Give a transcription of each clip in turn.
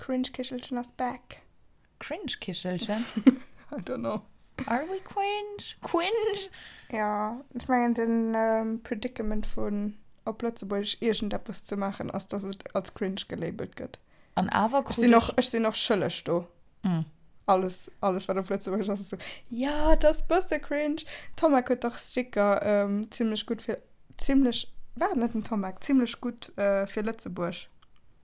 Cringe Kichelchen ass back. Cringe Kichelchen? I don't know. Are we cringe? Cringe? Ja, ech mengen den Predicament vun op Lëtzebuergesch iergendeppes ze maachen ass, dass et als cringe gelabelt gëtt. An awer krut ech. Sinn och, ech sinn och schëlleg do. Mm. Alles, alles wat op Lëtzebuergesch ass, ass esou, ja, dat ass bësse cringe. Tomek huet dach Sticker ähm, zimmlech gutt fir, zimmlech, war et net den Tomek? Zimmlech gutt äh, fir Lëtzebuerg.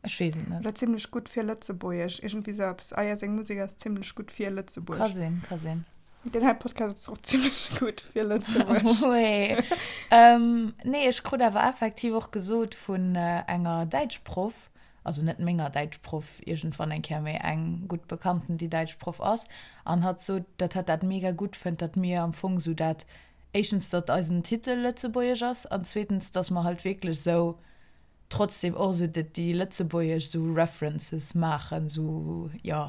Ech weess et net. Oder zimmlech gutt fir Lëtzebuergesch, iergendwéi sou eppes. Ah ja, seng Musek ass zimmlech gutt fir Lëtzebuerg. Ka sinn, ka sinn. Deen hei Podcast ass och zimmlech gutt fir Lëtzebuerg. Wee. Ähm, nee, ech krut awer effektiv och gesot vun enger Däitschproff, also net menger Däitschproff iergendwann eng Kéier, mee eng gutt Bekannten, déi Däitschproff ass, an hatt sot, datt hatt dat mega gutt fënnt, datt mir am Fong sou dat, éischtens, datt eisen Titel lëtzebuergesch ass, an zweetens, datt mer halt wierklech sou trotzdem och esou déi lëtzebuergesch esou References maachen, esou jo,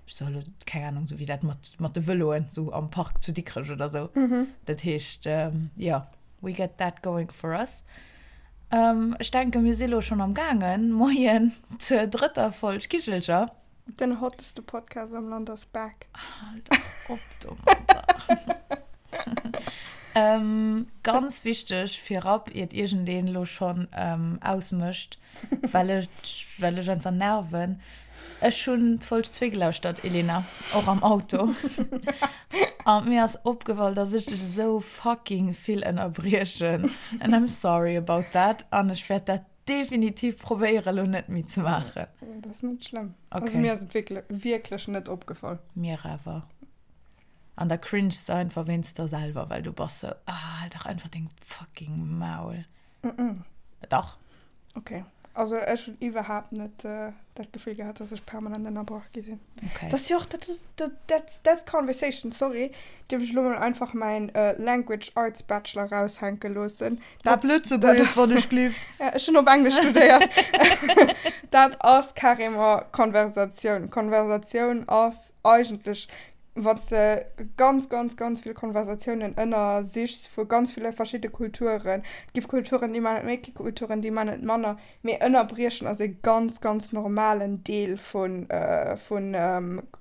ech soe lo, keng Ahnung, esou wéi dat mat mat de Vëloen esou am Park zu Dikrech oder esou. Dat heescht, jo, we get that going for us. Ech denken, mir si lo schonn am gaangen. Moien zur drëtter Folg Kichelcher. Den hotteste Podcast am Land ass back. Hal dach op domadder. ähm, ganz wichteg virab, iert iergendeen elo schonn ähm, ausmécht, well ech, well ech einfach nerven. Ech hunn d'Folg 2 gelauschtert, Elena, och am Auto. An mir ass opgefall, dass ech dech esou fucking vill ënnerbriechen. And I'm sorry about that. An ech wäert dat definitiv probéieren elo net méi ze maachen. Dat ass net schlëmm. Okay. Also mir ass et wierklech, wierklech net opgefall. Mir awer. An da cringest de einfach wéinst der selwer, well du bass sou, ah, hal dach einfach deng fucking Maul. Mm -mm. Dach. Okay. Also ech hunn iwwerhaapt net äh, dat Gefill gehat, dass ech permanent ënnerbrach gi sinn. Okay. Dat ass jo och, dat ass, dat, that's, that's conversation, sorry. Dierf ech elo mol einfach mäin äh, Language Arts Bachelor raushänke loossen. Dat, Op Lëtzebuergesch, wann ech gelift. Ja, ech hunn op Englesch studéiert. Dat ass carrément Konversatioun. Konversatioun ass eigentlech, wann s de ganz, ganz, ganz vill Konversatiounen ënnersichs vu ganz ville verschidde Kulturen, et gi Kulturen, déi man et méi, et gi Kulturen, déi man et manner, mee ënnerbriechen ass e ganz, ganz normalen Deel vu vu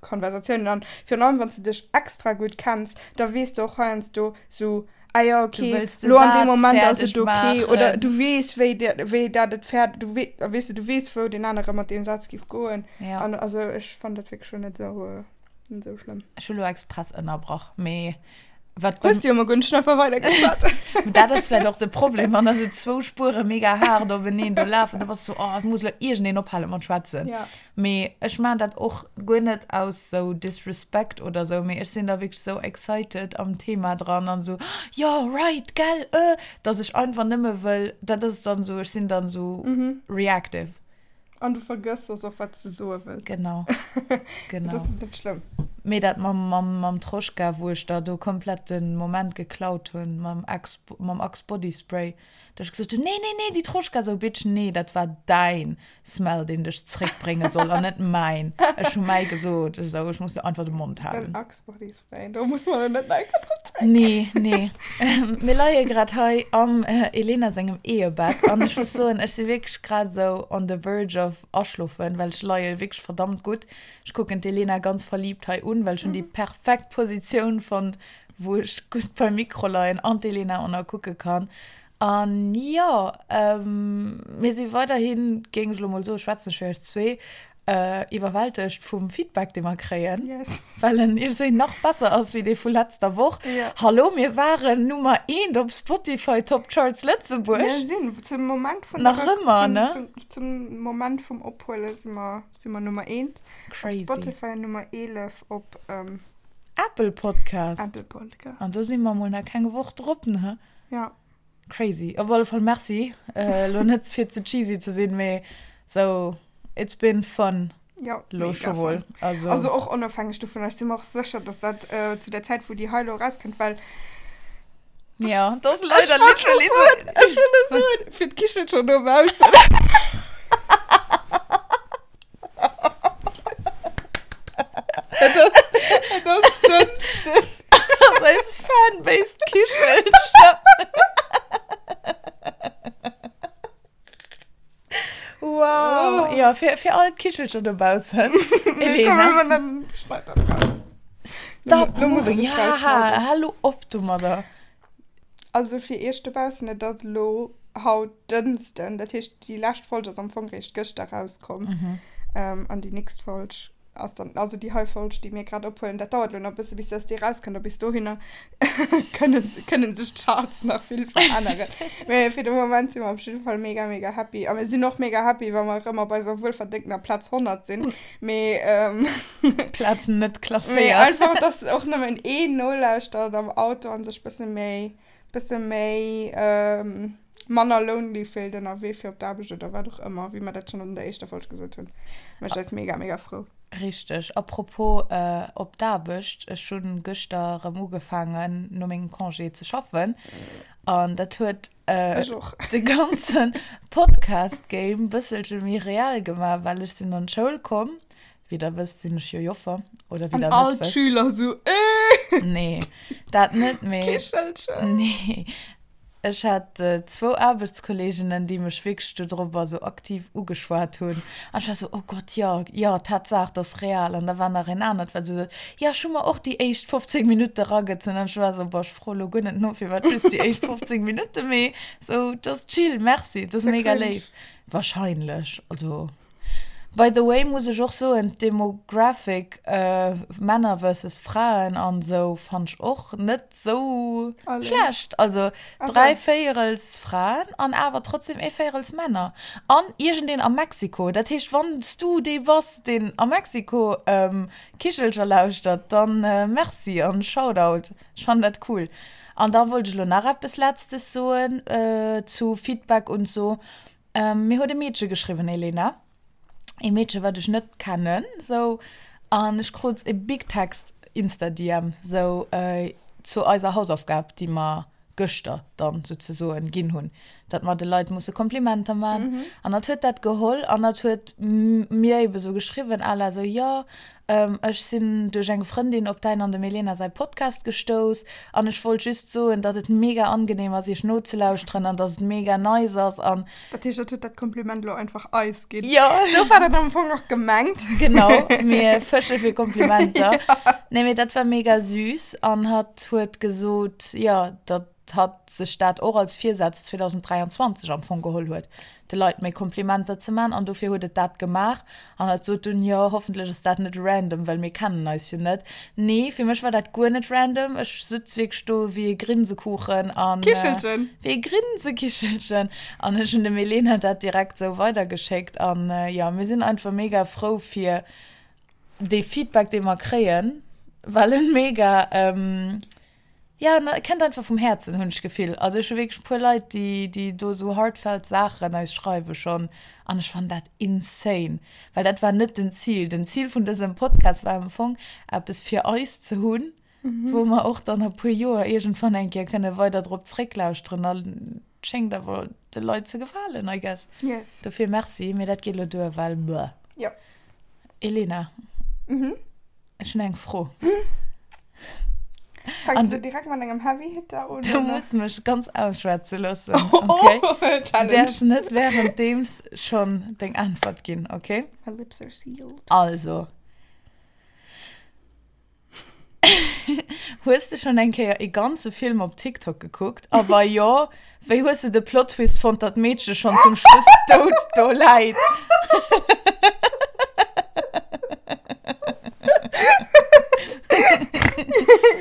Konversatiounen. An virun allem, wann s de dech extra gutt kenns, da weess de och heiansdo sou, ah ja, okay, lo an deem Moment ass et okay. Oder du weess, wéi, wéi dat et fäerdeg, du wee, weess de, du weess, wou deen anere mat deem Saz géif goen. Ja. An also ech fannen dat wierklech scho net esou, net esou schlëmm. Ech hu lo express ënnerbrach, mee wat. Hues du jo mol guer net, ech hunn einfach weidergeschwat. Dat ass vläicht och de Problem, wann da sou zwou Spuere mega haart openeen do lafen, da bass du sou, oh, et muss lo iergendeen ophale mat schwätzen. Ja. Mee ech maan dat och guer net aus sou Disrespect oder sou, mee ech sinn da wierklech sou excited am Thema dran an sou, jo, right, gell, äh, dass ech einfach nëmme wëll, dat ass dann sou, ech sinn dann sou reactive. An du vergëss soss och, wat s de soe wëlls. Genau, genau. Dat ass net schlëmm. Mee dat mam, mam, mam Troschka, wou ech der do komplett den Moment geklaut hunn, mam Axe, mam Axe Body Spray, dass ech gesot hunn, nee, nee, nee, déi Troschka, sou, Bitch, nee, dat war däin Smell, deen dech zréckbrénge soll an net mäin. Ech hu mäi gesot, ech sou, ech muss einfach de Mond halen. Den Axe Body Spray, do muss mer elo net nach eng Kéier drop zréck. Nee, nee. Mir leie grad hei am Elena sengem Ehebett an ech muss soen, ech si wierklech grad esou on the verge of aschlofen, well ech leie wierklech verdammt gutt. Ech kucken d'Elena ganz verliebt hei un, well ech hunn déi perfekt Positioun fonnt, wou ech gutt beim Mikro leien an d'Elena och nach kucke kann. An jo, mir si weiderhin, géing ech elo mol soen, schwätzen ech fir eis zwee, iwwerwältegt vum Feedback, dee mer kréien, Yes. well en iergendwéi nach besser ass wéi dee vu letzter Woch. Ja. Hallo, mir waren Nummer eent op Spotify Top Charts Lëtzebuerg. Mir sinn zum Moment vun Nach der Rec- ëmmer, vun, ne? zum, zum Moment vum Ophuele si mer, si mer Nummer eent op Crazy. Spotify an Nummer 11 op Apple Podcast. Apple Podcast. An do si mer mol nach keng Woch drop, ne? Ja. Crazy. Op alle Fall merci. Äh, lo net fir ze cheesy ze sinn, mee sou, it's been fun. Ja, Lo mega scho wuel. fun. Also, Also och onofhängeg dovun, ech si mer och sécher, dass dat äh, zu der Zäit, wou déi hei lo erauskënnt, well ja, dat ass Ech leider wollt scho literally soen, sou. ech wëll net soen, fir d'Kichen scho dobaussen. Et ass Dënschden. Ass eis Fanbase d'Kichelcher. Wow. Ja, fir. Fir all d'Kichelcher dobaussen. Elena. Schneid dat raus. Stop Lo muss moving. ech et Ja, rausschneiden. hallo op domadder. Also fir iech dobaussen, et ass elo haut Dënschden, dat heescht déi lescht Folg ass am Fong réischt gëschter rauskomm. An déi nächst Folg ass dann, also déi hei Folg, déi mir grad ophuelen, dat dauert elo nach e bësse bis dass déi rauskënnt a bis dohinner kënne kënne sech d'Charts nach vill veränneren. Mee fir de Moment si mer op jidde Fall mega mega happy a mir sinn och mega happy, wa mer erëm op eiser wuelverdéngtener Plaz 100 sinn. Mee Plaz net mee klasséiert. einfach, dass och nëmmen een nolauschtert am Auto a sech bësse méi bësse méi manner lonely fillt ënnerwee fir op d'Aarbecht oder wat och ëmmer, wéi mer dat schonn an der éischter Folg gesot hunn, mécht eis mega, mega frou. Richteg. A propos op d'Aarbecht, ech hu gëschter erëm ugefaangen no mengem Congé ze schaffen an dat huet de ganze Podcast-Game bësselche méi reell gemaach, well ech sinn an d'Schoul komm, wéi der wësst sinn ech jo Joffer, oder wéi An der all net wësst. d'Schüler sou, Äh! Nee, dat net, mee. Kichelchen! Nee. Ech hat zwou Aarbechtskolleeginnen, déi mech wierklech dodrobber sou aktiv ugeschwat hunn. An ech war sou, Oh Gott, jo, jo, Tatsaach, dat ass real. An da war nach een anert, wat sou sot, Jo, ech hu mer och déi éischt 15 Minutte ragezunn. An ech war sou, Boah, ech froe lo guer net no, firwat just déi éischt 15 Minutte, mee sou, dat ass chill, merci, dat ass mega léif. Wahrscheinlech, also. By the way muss ech och soen, d'Demographic Männer versus Fraen an sou fannt ech och net sou schlecht. Also 3 Véierels Fraen an awer trotzdem ee Véierels Männer. An iergendeen a Mexiko. Dat heescht wann s du dee bass deen a Mexiko Kichelcher lauschtert, dann merci an Shoutout. Ech fannen dat cool. An da wollt ech elo nach eppes letztes soen zu Feedback und so. Mir huet e Meedche geschriwwen, Elena. E Meedche, wat ech net kennen, sou. An ech krut e big Text Insta-DM, sou zu eiser Hausaufgab, déi mer gëschter dann souzesoen ginn hunn, datt mer de Leit musse Komplimenter man. An hatt huet dat geholl an hatt huet mir ebe sou geschriwwen à la sou, jo, Ech sinn duerch eng Frëndin op däin an dem Elena säi Podcast gestouss an ech wollt just soen, datt et mega angenehm ass iech nozelauschteren an datt et mega nice ass an. Dat heescht, et huet dat Kompliment elo einfach eis ginn. Jo. Sou war dat am Fong och gemengt. Genau, mir fësche fir Komplimenter. Nee, mee dat war mega süß an hatt huet gesot, jo, datt hatt sech dat och als Virsaz 2023 am Fong geholl huet, de Leit méi Komplimenter ze man, an dofir huet et dat gemaach. An hatt sot dunn, jo, hoffentlech ass dat net random, well mir kennen eis jo net. Nee, fir mech war dat guer net random. Ech sutz wierklech do wéi e Grinsekuchen an. Kichelchen! Wéi e Grinsekichelchen! An ech hunn dem Elena dat direkt esou weidergeschéckt. An jo, mir sinn einfach mega frou fir dee Feedback, dee mer kréien, well en mega. Ja, na, kennt einfach vum Häerzen, hunn ech d'Gefill. Also ech hu wierklech e puer Leit, déi, déi do esou heartfelt Saachen eis schreiwe schonn an ech fannen dat insane, well dat war net den Zil. Den Zil vun dësem Podcast war am Fong, eppes fir eis ze hunn, wou mer och dann a puer Joer iergendwann eng Kéier kënne weider drop zrécklauschteren a et schéngt awer de Leit ze gefalen, I guess. Yes. Dofir merci, mee dat geet elo duer, well bleh. Jo. Elena. Ech hunn eng Fro. Fänks du direkt mat engem Heavy Hitter un? Du muss mech ganz ausschwätze loossen, okay? Oh, Du Challenge. däerfs net währenddeems schonn deng Äntwert ginn, okay? My lips are sealed. Also. Hues de schonn eng Kéier ee ganze Film op TikTok gekuckt? A wa jo, wéi hues de de Plot Twist fonnt, datt d'Meedche schonn zum Schluss dout do läit?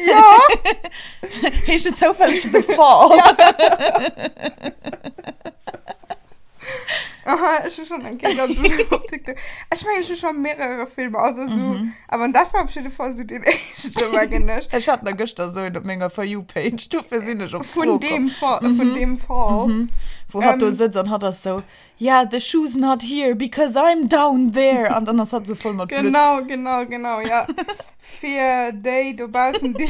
Ja! Heescht et zoufälleg The Fall? Aha, ech hu schon eng Kéier ganz op TikTok. Ech mengen, ech hu schon mehrere Filmer, also so, mhm. aber dat war op jidde Fall so den éischte, mengen ech. Ech hat nach gëschter so een op menger For You-Page, dofir sinn ech op Vun deem Fall, mm -hmm. vun deem Fall. Mm -hmm. Wou hatt do sëtzt an hatt ass so, yeah, the shoe's not here because I'm down there. An dann ass hatt so voll mat Blutt. Genau, genau, genau, ja. Fir déi dobaussen, déi.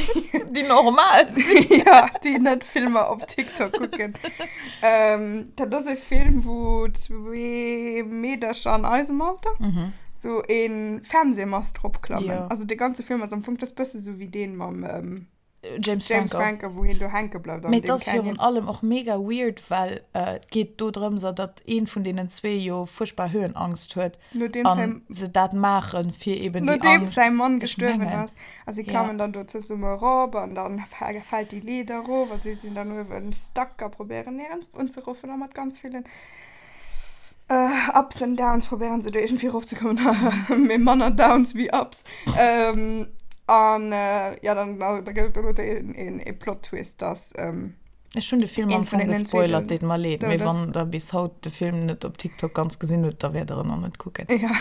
Déi normal sinn. Ja, déi net Filmer op TikTok kucken. Ähm, dat ass e Film, wou zwee Meedercher an eisem Alter mm sou e Fernsehmast eropklammen. Jo. Also de ganze Film ass am Fong, dat ass bësse sou wéi deen mam. Ähm. James James Franco. Franco, wou hien do hänke bleift an Mee et deem ass virun Canyon. allem och mega weird, well et geet do drëms, datt een vun deenen zwee jo fuerchtbar Höhenangst huet Nodeems an säi se dat maachen, fir eben déi Nodeems Angscht. säi Mann Ech gestuerwen mengen, ass. A si ja. klammen dann do zesumme erop an dann fält déi Leeder erof a si sinn dann uewen stuck a probéieren néierens unzeruffen a mat ganz villen Ups and Downs probéieren se do iergendwéi erofzekommen, mee manner Downs wéi Ups. An jo, dann da gëtt et do een ee Plot Twist, dass. Ech hunn de Film am Een vun Fong deenen zwee gespoilert, deet mer leed, mee dout ass. wann der bis haut de Film net op TikTok ganz gesinn hutt, da wäert der en och net kucken. Ja.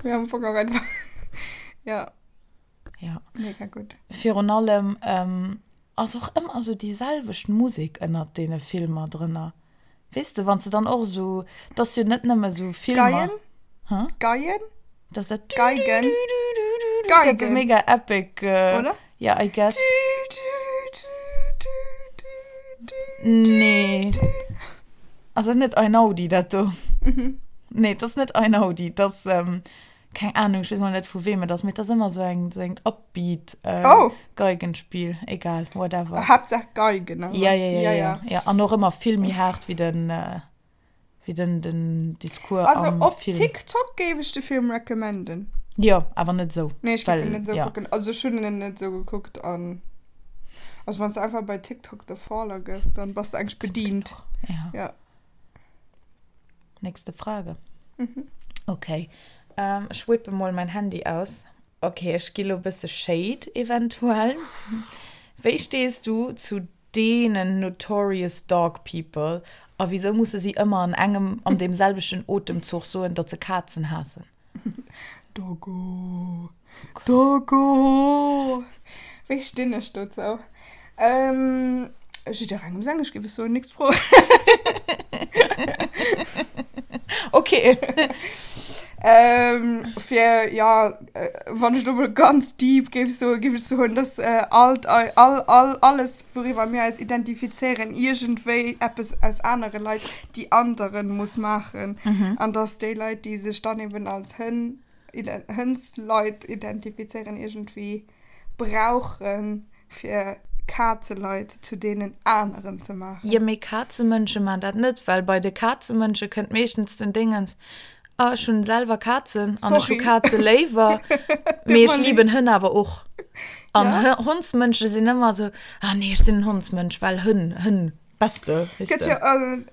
Mee am Fong och einfach, ja. Ja. Mega gutt. Virun allem ass och ëmmer esou déi selwecht Musek ënnert deene Filmer drënner. Weess de, wann s de dann och esou, 't ass jo net nëmme esou Filmer. Geien? Hä? Geien? Dat ass dat Geigen. Du-du-du-du-du-du, dat esou Geigen. mega epic. Oder? Ja, I guess. Du-du-du-du-du-du. Nee. Ass dat net Einaudi, dat do? Mhm. Nee, 't ass net Einaudi, 't ass, keng Ahnung, ech weess mol net vu weem et ass, mee et ass ëmmer esou eng, esou eng upbeat äh, Oh. Geigenspill, egal, whatever. Haaptsaach Geigen, awer. Ja, ja, ja, Ja, ja, ja. ja. An och ëmmer vill méi haart wéi den, äh, wéi den, den Discours Also am op Film. TikTok géif ech de Film recommenden. Jo, awer net esou. Nee, ech géif Well, en net esou ja. kucken. Also ech hunn en net esou gekuckt an also wann s de einfach bei TikTok The Fall agëss, dann bass de eigentlech bedient. Ja. Ja. Nächste Frage. Mhm. Okay. Ähm, ech whippe mol mein Handy aus. Okay, ech gi lo bësse Shade eventuell. Wéi stees du zu deenen notorious dog people a wisou musse si ëmmer an engem an deem selwechten Otemzuch soen, datt se Kazen haassen? Doggo. Doggo! Wéi stinn ech dozou? Ähm, jidderengem seng, ech géif es soen. Nächst Fro. Okay. Ähm, fir, ja, wann ech lo mol ganz deep géif soen, géif ech soen, dass all, all, all, alles, wouriwwer mir eis identifizéieren, iergendwéi eppes aus anere Leit, déi anderen muss maachen. An dass déi Leit, déi sech dann eben als Hënn, Hënnsleit identifizéieren, iergendwéi brauchen, fir Kazeleit zu deenen aneren ze maachen. Jo, mee Kazemënsche maan dat net, well bei de Kazemënsche kënnt meeschtens den Dingens, ah ech hunn selwer Kazen an ech hu Sorry. Kaze léiwer, Tut mee ech mer leed. liben Hënn awer och. An Ja. Hondsmënsche sinn ëmmer esou, ah nee, ech sinn en Hondsmënsch, well Hënn, Hënn. Beste, weess Gëtt de. jo,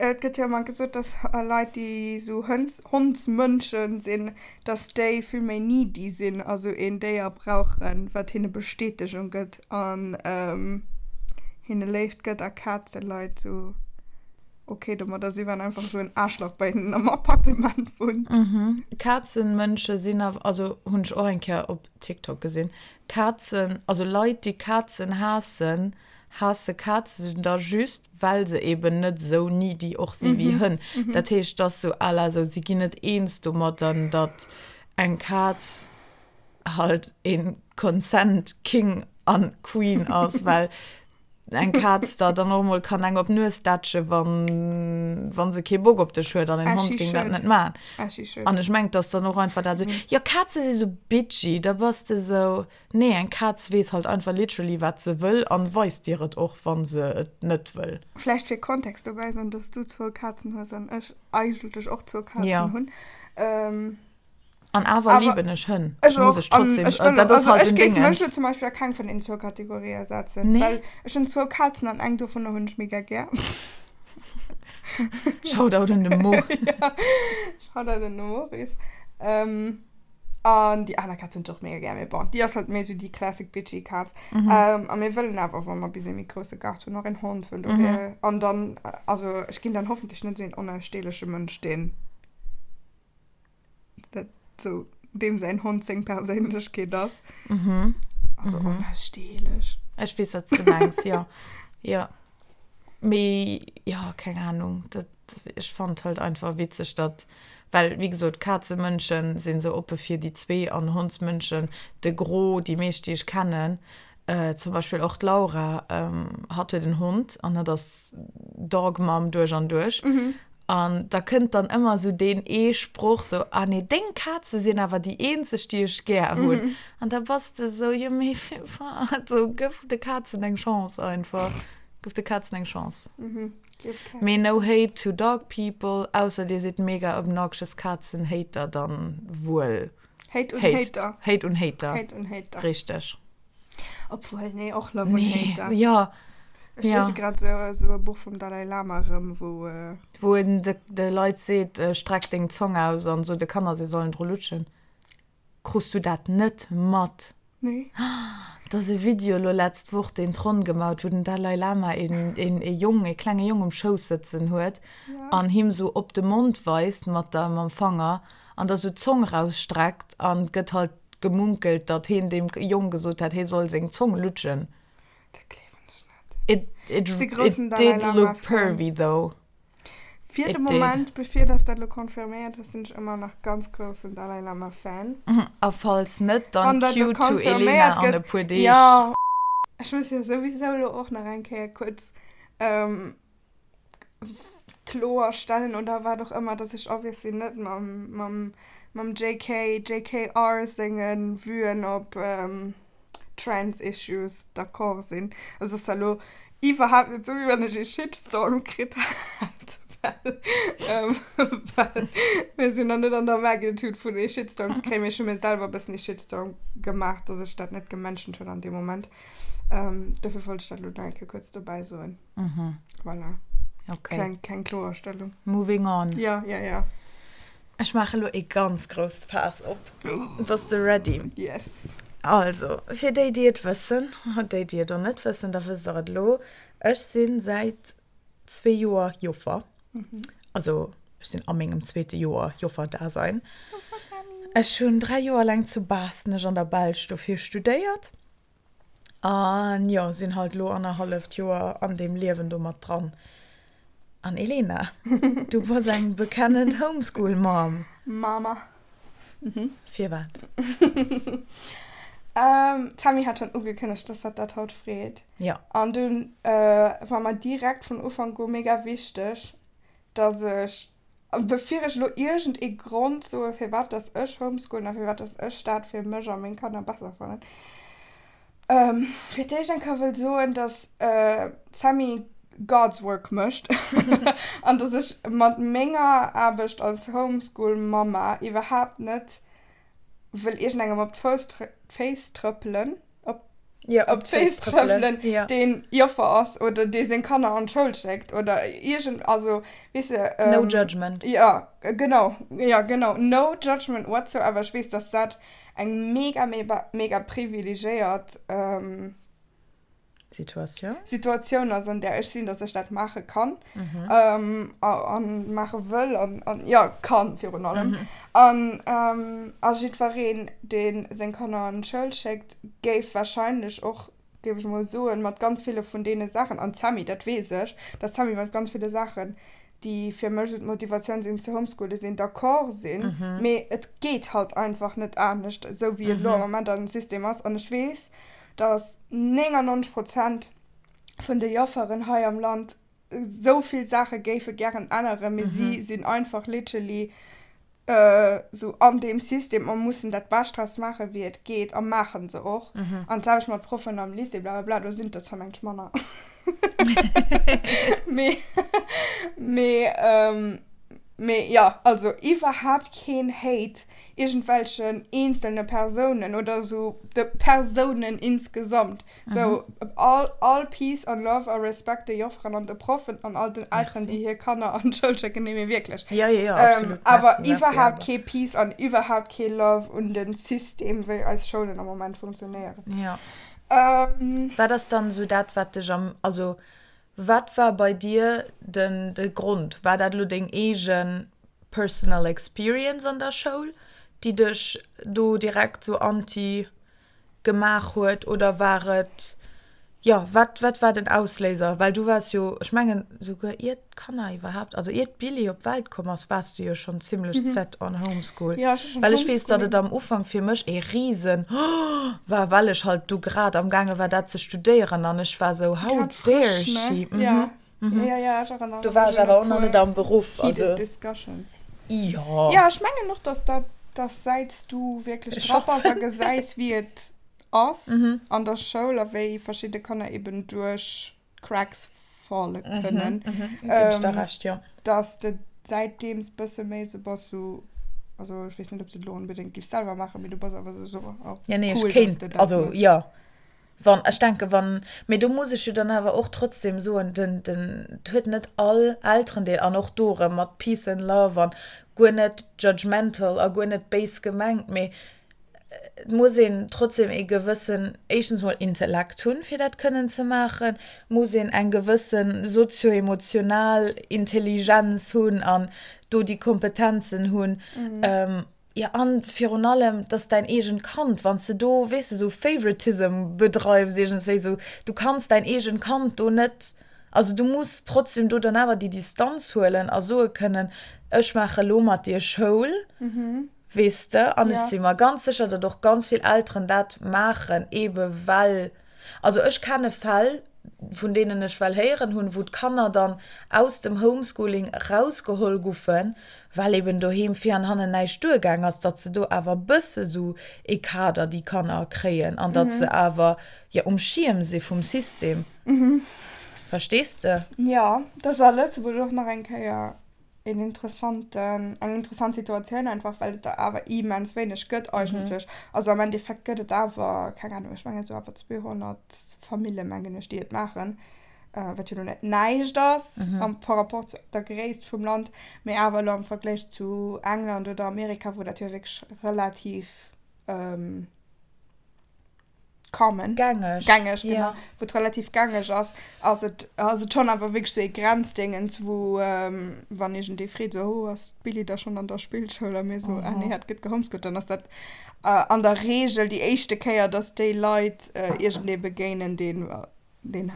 et gëtt jo ëmmer gesot, dass Leit, déi esou Hënns, Hondsmënschen sinn, dass déi vill méi needy sinn, also een Déier brauchen, wat hinne Bestätegung gëtt an hinne Léift gëtt a Kazeleit esou ok domadder sinn, wann einfach esou en Aarschlach bei hinnen am Appartement wunnt. Kazenmënsche sinn awer, also hunn ech och eng Kéier op TikTok gesinn, Kazen, also Leit, déi Kazen haassen, Haasse Kazen da just, well se eben net esou needy och si wéi Hënn. Dat heescht, et ass sou à la sou, si ginn net eens domadden, datt eng Kaz halt ee Consent King an Queen ass, well eng Kaz der dann och mol kann eng op d'Nues dätsche wann, wa se kee Bock op dech huet an en Hond géing dat net maachen. An ech mengen, et ass dann och einfach dat sou, jo Kaze si sou bitchy, da bass de sou. Nee, eng Kaz weess halt einfach literally wat se wëll an weist dir et och wann se et net wëll. Vläicht fir Kontext dobäi soen, dass du zwou Kazen hues an ech eigentlech och zwou Kazen Ja. hunn. An awer Awer liben ech Hënn. ech Muss och. ech An trotzdem, ech wëll dat och, ass also halt ech den géif mech Dingens. lo zum Beispill a keng vun den zwou Kategorië setzen, Nee. well ech hunn zwou Kazen an eng dovunner hunn ech mega gär. Shoutout un de Mo. Ja, Shoutout un de Maurice. An déi aner Kaz hunn ech och mega gär, mee bon, déi ass halt méi sou déi classic bitchy Kaz. Mm -hmm. ähm, a mir wëllen awer, wa mer bis ee méi grousse Gaart hunn, och en Hond, vun dohier. Mm -hmm. An dann, also ech ginn dann hoffentlech net sou een onaussteeleche Mënsch, deen dat sou, deem säin Hond seng Perséinlechkeet ass. Mhm. Also mm -hmm. onaussteelech. Ech weess, wat s du mengs, jo. Jo. Mee jo, keng Ahnung, dat, ech fand halt einfach witzeg, datt, well wéi gesot, Kazemënschen sinn sou oppe fir déi zwee an Hondsmënschen, de Gros, déi meescht déi ech kennen, zum Beispill och d'Laura, hatt huet en Hond an hatt ass Dog Mom duerch an duerch. An da kënnt dann ëmmer esou deen ee Sproch sou, ah nee, deng Kaze sinn awer déi eenzeg, déi ech gär hunn. An da bass de sou, jo mee firwat? Sou, gëff de Kazen eng Chance einfach. Gëff de Kazen eng Chance. Mee no hate to dog people, ausser dir sidd mega obnoxious Kazen-Hater, dann wuel. Hate un Hater. Hate un Hater. Hate un Hater. Richteg. Obwuel, nee, och Love un nee, Hater. Ja. Ech ja. lese grad so, so e Buch vum Dalai Lama erëm, wou. Äh... Wou en de, de Leit seet, äh, streck deng Zong aus an so de Kanner, se sollen dru lutschen. Krus du dat net mat? Nee. Et ass e Video elo letzt Woch deen d'Ronn gemaut, wou den Dalai Lama een, een, ee Jong, ee klenge Jong um Schouss sëtzen huet ja. an him sou op de Mond weist mat der, mam Fanger an da sou d'Zong rausstreckt an gëtt halt gemunkelt, datt heen deem Jong gesot hätt, hee soll seng Zong lutschen. Dat gleewen ech net. It, it, Ech si groussen it did Dalai look Lama-Fan. pervy though. Fir de It did. Moment, bevir dass dat elo confirméiert ass, sinn ech ëmmer nach ganz groussen Dalai Lama Fan. A falls net, dann Wann dat elo cue to Elena confirméiert an e gëtt, puer Deeg. jo. Ech muss jo souwisou elo och nach eng Kéier kuerz kloer stellen oder wat och ëmmer, dass ech obviously net mam, mam, mam JK, JKR senge Vuen op Trans Issues d'accord sinn. Also ass da lo iwwerhaapt net sou, wéi wann ech ee Shitstorm kritt hätt, well, ähm, well mir sinn nach net an der Magnitude vun ee Shitstorm ze kréien, mee ech hu mir selwer e bëssen ee Shitstorm gemaach, dass ech dat net gementioned hunn an deem Moment. Ähm, dofir wollt ech dat lo nach eng Kéier kuerz dobäi soen. Mhm. Voilà. Okay. Kleng, kleng Kloerstellung. Moving on. Ja, ja, ja. Ech maache lo ee ganz grousst Faass op. Bass de ready? Yes. Also, fir déi, déi et wëssen, déi, déi et och net wëssen, da wësst der et elo, Ech si säit zwee Joer Joffer. Also, ech sinn a mengem zweete Joer Joffer-Dasein. Ech hunn 3 Joer laang zu Baaschtnech an der Belsch dofir studéiert. An jo, sinn halt lo annerhalleft Joer an deem Liewen do mat dran. An Elena, du bass eng bekennend Homeschool Mom. Mama. Firwat? D'Tammy hat schonn ugekënnegt, dass hatt dat haut freet. Jo. An dunn war mer direkt vun Ufank u mega wichteg, dass ech Bevir ech elo iergend ee Grond soe firwat dass ech homeschoolen a firwat dass ech dat fir mech a meng Kanner besser fannen, fir d'éischt eng Kéier wëll soen, dass d'Sammy God's work mécht an dass ech mat menger Aarbecht als Homeschool-Mamma iwwerhaapt net wëll iergendengem op d'Féiss trëppelen. op, ja, op d'Féiss trëppelen, ja. deen Joffer ass oder dee seng Kanner an d'Schoul schéckt oder iergend, also weess de. Ähm, no judgment. Ja, genau, ja, genau, no judgment whatsoever. Ech weess, dass dat eng mega, mega, mega privilegéiert ähm, Situatioun? Situatioun ass, an där ech sinn, dass ech dat maache kann mhm. ähm, an maache wëll an, an ja, kann virun allem. Mhm. An, ähm, a jiddwereen, dee seng Kanner an d'Schoul schéckt, géif wahrscheinlech och, géif ech mol soen, mat ganz ville vun deene Saachen, an d'Sammy, dat weess ech, dass d'Sammy mat ganz ville Saachen, déi fir mech esou d'Motivatioun sinn ze homeschoolen, sinn, d'accord sinn, mee et geet halt einfach net anescht, esou wéi et elo am Moment am System ass. An ech weess, dass 99 Prozent vun de Jofferen hei am Land esou vill Saache géife gären änneren, mee si sinn einfach literally esou an deem System a mussen dat Bescht draus maachen, wéi et geet, a maache se och. An d'selwecht mat Proffen am Lycée, blablabla, do sinn et der zwar mengt ech manner, mee, mee, mee jo, also iwwerhaapt keen Hate iergendwelchen eenzelne Persounen oder esou de Persounen insgesamt. Sou all, all Peace an Love a Respekt de Jofferen an de Proffen an all den Elteren, déi hir Kanner an d'Schoul schécken. Nee, mee wierklech. Ja, ja, ja, absolut. Awer Merci, merci, iwwerhaapt awer. kee Peace an iwwerhaapt kee Love un de System, wéi eis Schoulen am Moment funktionéieren. Ja. Wat ass dann esou dat, wat dech am, also wat war bei dir den, de Grond? War dat elo deng eegen personal experience an der Schoul, déi dech do direkt sou anti gemaach huet oder war et, jo, wat, wat war den Ausléiser? Well du waars jo, ech mengen souguer ier d'Kanner iwwerhaapt, also ier d'Billie op d'Welt komm ass, waars du jo schonn zimlech set on Homeschool. Ja, ech hu schonn Well ech weess, datt Homeschooling. et am Ufank fir mech ee Risen war, well ech halt du grad am gaange war dat ze studéieren an ech war sou, how Grad dare frësch, ne? she? Ja. Ja, ja, ech erënnere Do war mech ech un awer e och nach puer net am Beruff, also. heated discussion. Jo. Ja, ech mengen och, dass dat, dass säits du wierklech Ech dra bass a hoffen. gesäis, wéi et ass an der Schoul a wéi verschidde Kanner eben duerch d'Cracks falle kënnen, Mhm, ginn ech der Recht, jo. dass de säitdeems bësse méi sou bass, sou, also ech weess net, ob s de et elo onbedéngt giffs selwer maachen, mee du bass awer sou, oh, Ja, nee, ech cool, dass kéint, de dat also méchs. jo. Wann, ech denke wann, mee do muss ech jo dann awer och trotzdem soen, den, den, et huet net all Elterendeel, an och do erëm mat Peace and Love an guer net judgmental a guer net béis gemengt, mee et muss een trotzdem ee gewëssen, éischtens mol Intellekt hunn, fir dat kënnen ze maachen, muss een eng gewësse sozio-emotional Intelligenz hunn an do déi Kompetenzen hunn. Jo, an virun allem, 't ass däin eegent Kand, wann s de do, weess de, sou Favoritism bedreifs iergendswéi, sou, du kanns däin eegent Kand do net, also du muss trotzdem do dann awer déi Distanz huelen a soe kënnen, ech maache lo mat dir Schoul, weess de. An ech si mer ganz sécher, datt och ganz vill Elteren dat maachen, eebe well Also ech kenne Fäll, vun deenen ech well héieren hunn, wou d'Kanner dann aus dem Homeschooling erausgeholl guffen, well eben doheem vir an hannen näischt duergaang ass, datt se do awer e bësse sou ee Kader, déi Kanner, kréien an datt se awer, jo, um Schierm si vum System. Verstees de? Jo, dat ass a Lëtzebuerg och nach eng Kéier een interessanten, eng interessant Situatioun einfach, well et der awer immens wéineg gëtt eigentlech. Also am Endeffekt gëtt et awer, keng Ahnung, ech mengen esou awer 200 Famille mengen ech, déi et maachen, wat jo lo net näischt ass am par rapport zu der Gréisst vum Land, mee awer elo am Vergléich zu England oder Amerika, wou dat jo wierklech relativ common. Gängeg. Gängeg, genau. Ja. Wou et relativ gängeg ass, ass et, ass et schonn awer wierklech sou ee Grenzdéngens, wou, wann iergendee freet, sou, oh, ass d'Billy da schonn an der Spillschoul? A mir sou, ah nee, hat gëtt gehomeschoolt, dann ass dat an der Reegel déi éischte Kéier, dass déi Leit iergendee begéinen, deen deen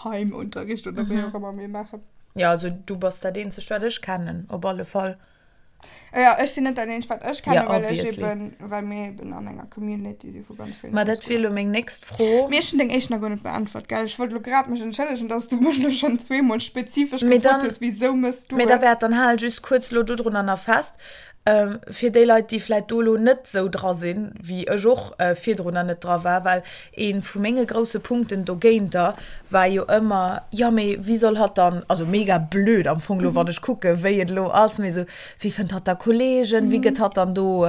Heimunterricht oder wéi och ëmmer mir maachen. Jo, also du bass dat eenzegt, wat ech kennen, op alle Fall. Ja, ech sinn net dat eenzegt, wat ech kennen, Ja, well ech obviously. eben, well mir eben an enger Community si vu ganz villen Ma dat wier Homeschooler. elo meng nächst Fro. Mee ech hunn deng éischt nach guer net beäntwert, gell? Ech wollt elo grad mech entschëllegen, dass du mech elo schonn zweemol spezifesch Mee gefrot dann, hues, Wisou mëss du mee da et? wäert dann hal just kuerz elo dodrunner nach fest, Fir déi Leit, déi vläit do elo net esou dra sinn, wéi ech och virdrunner net dra war, well ee vu menge grousse Punkten dogéinter war jo ëmmer, jo mee wéi soll hatt dann, also mega blöd am Fong elo, wann ech kucke wéi et elo ass, mee esou, wéi fënnt hatt da Kollegen, wéi gëtt hatt dann do,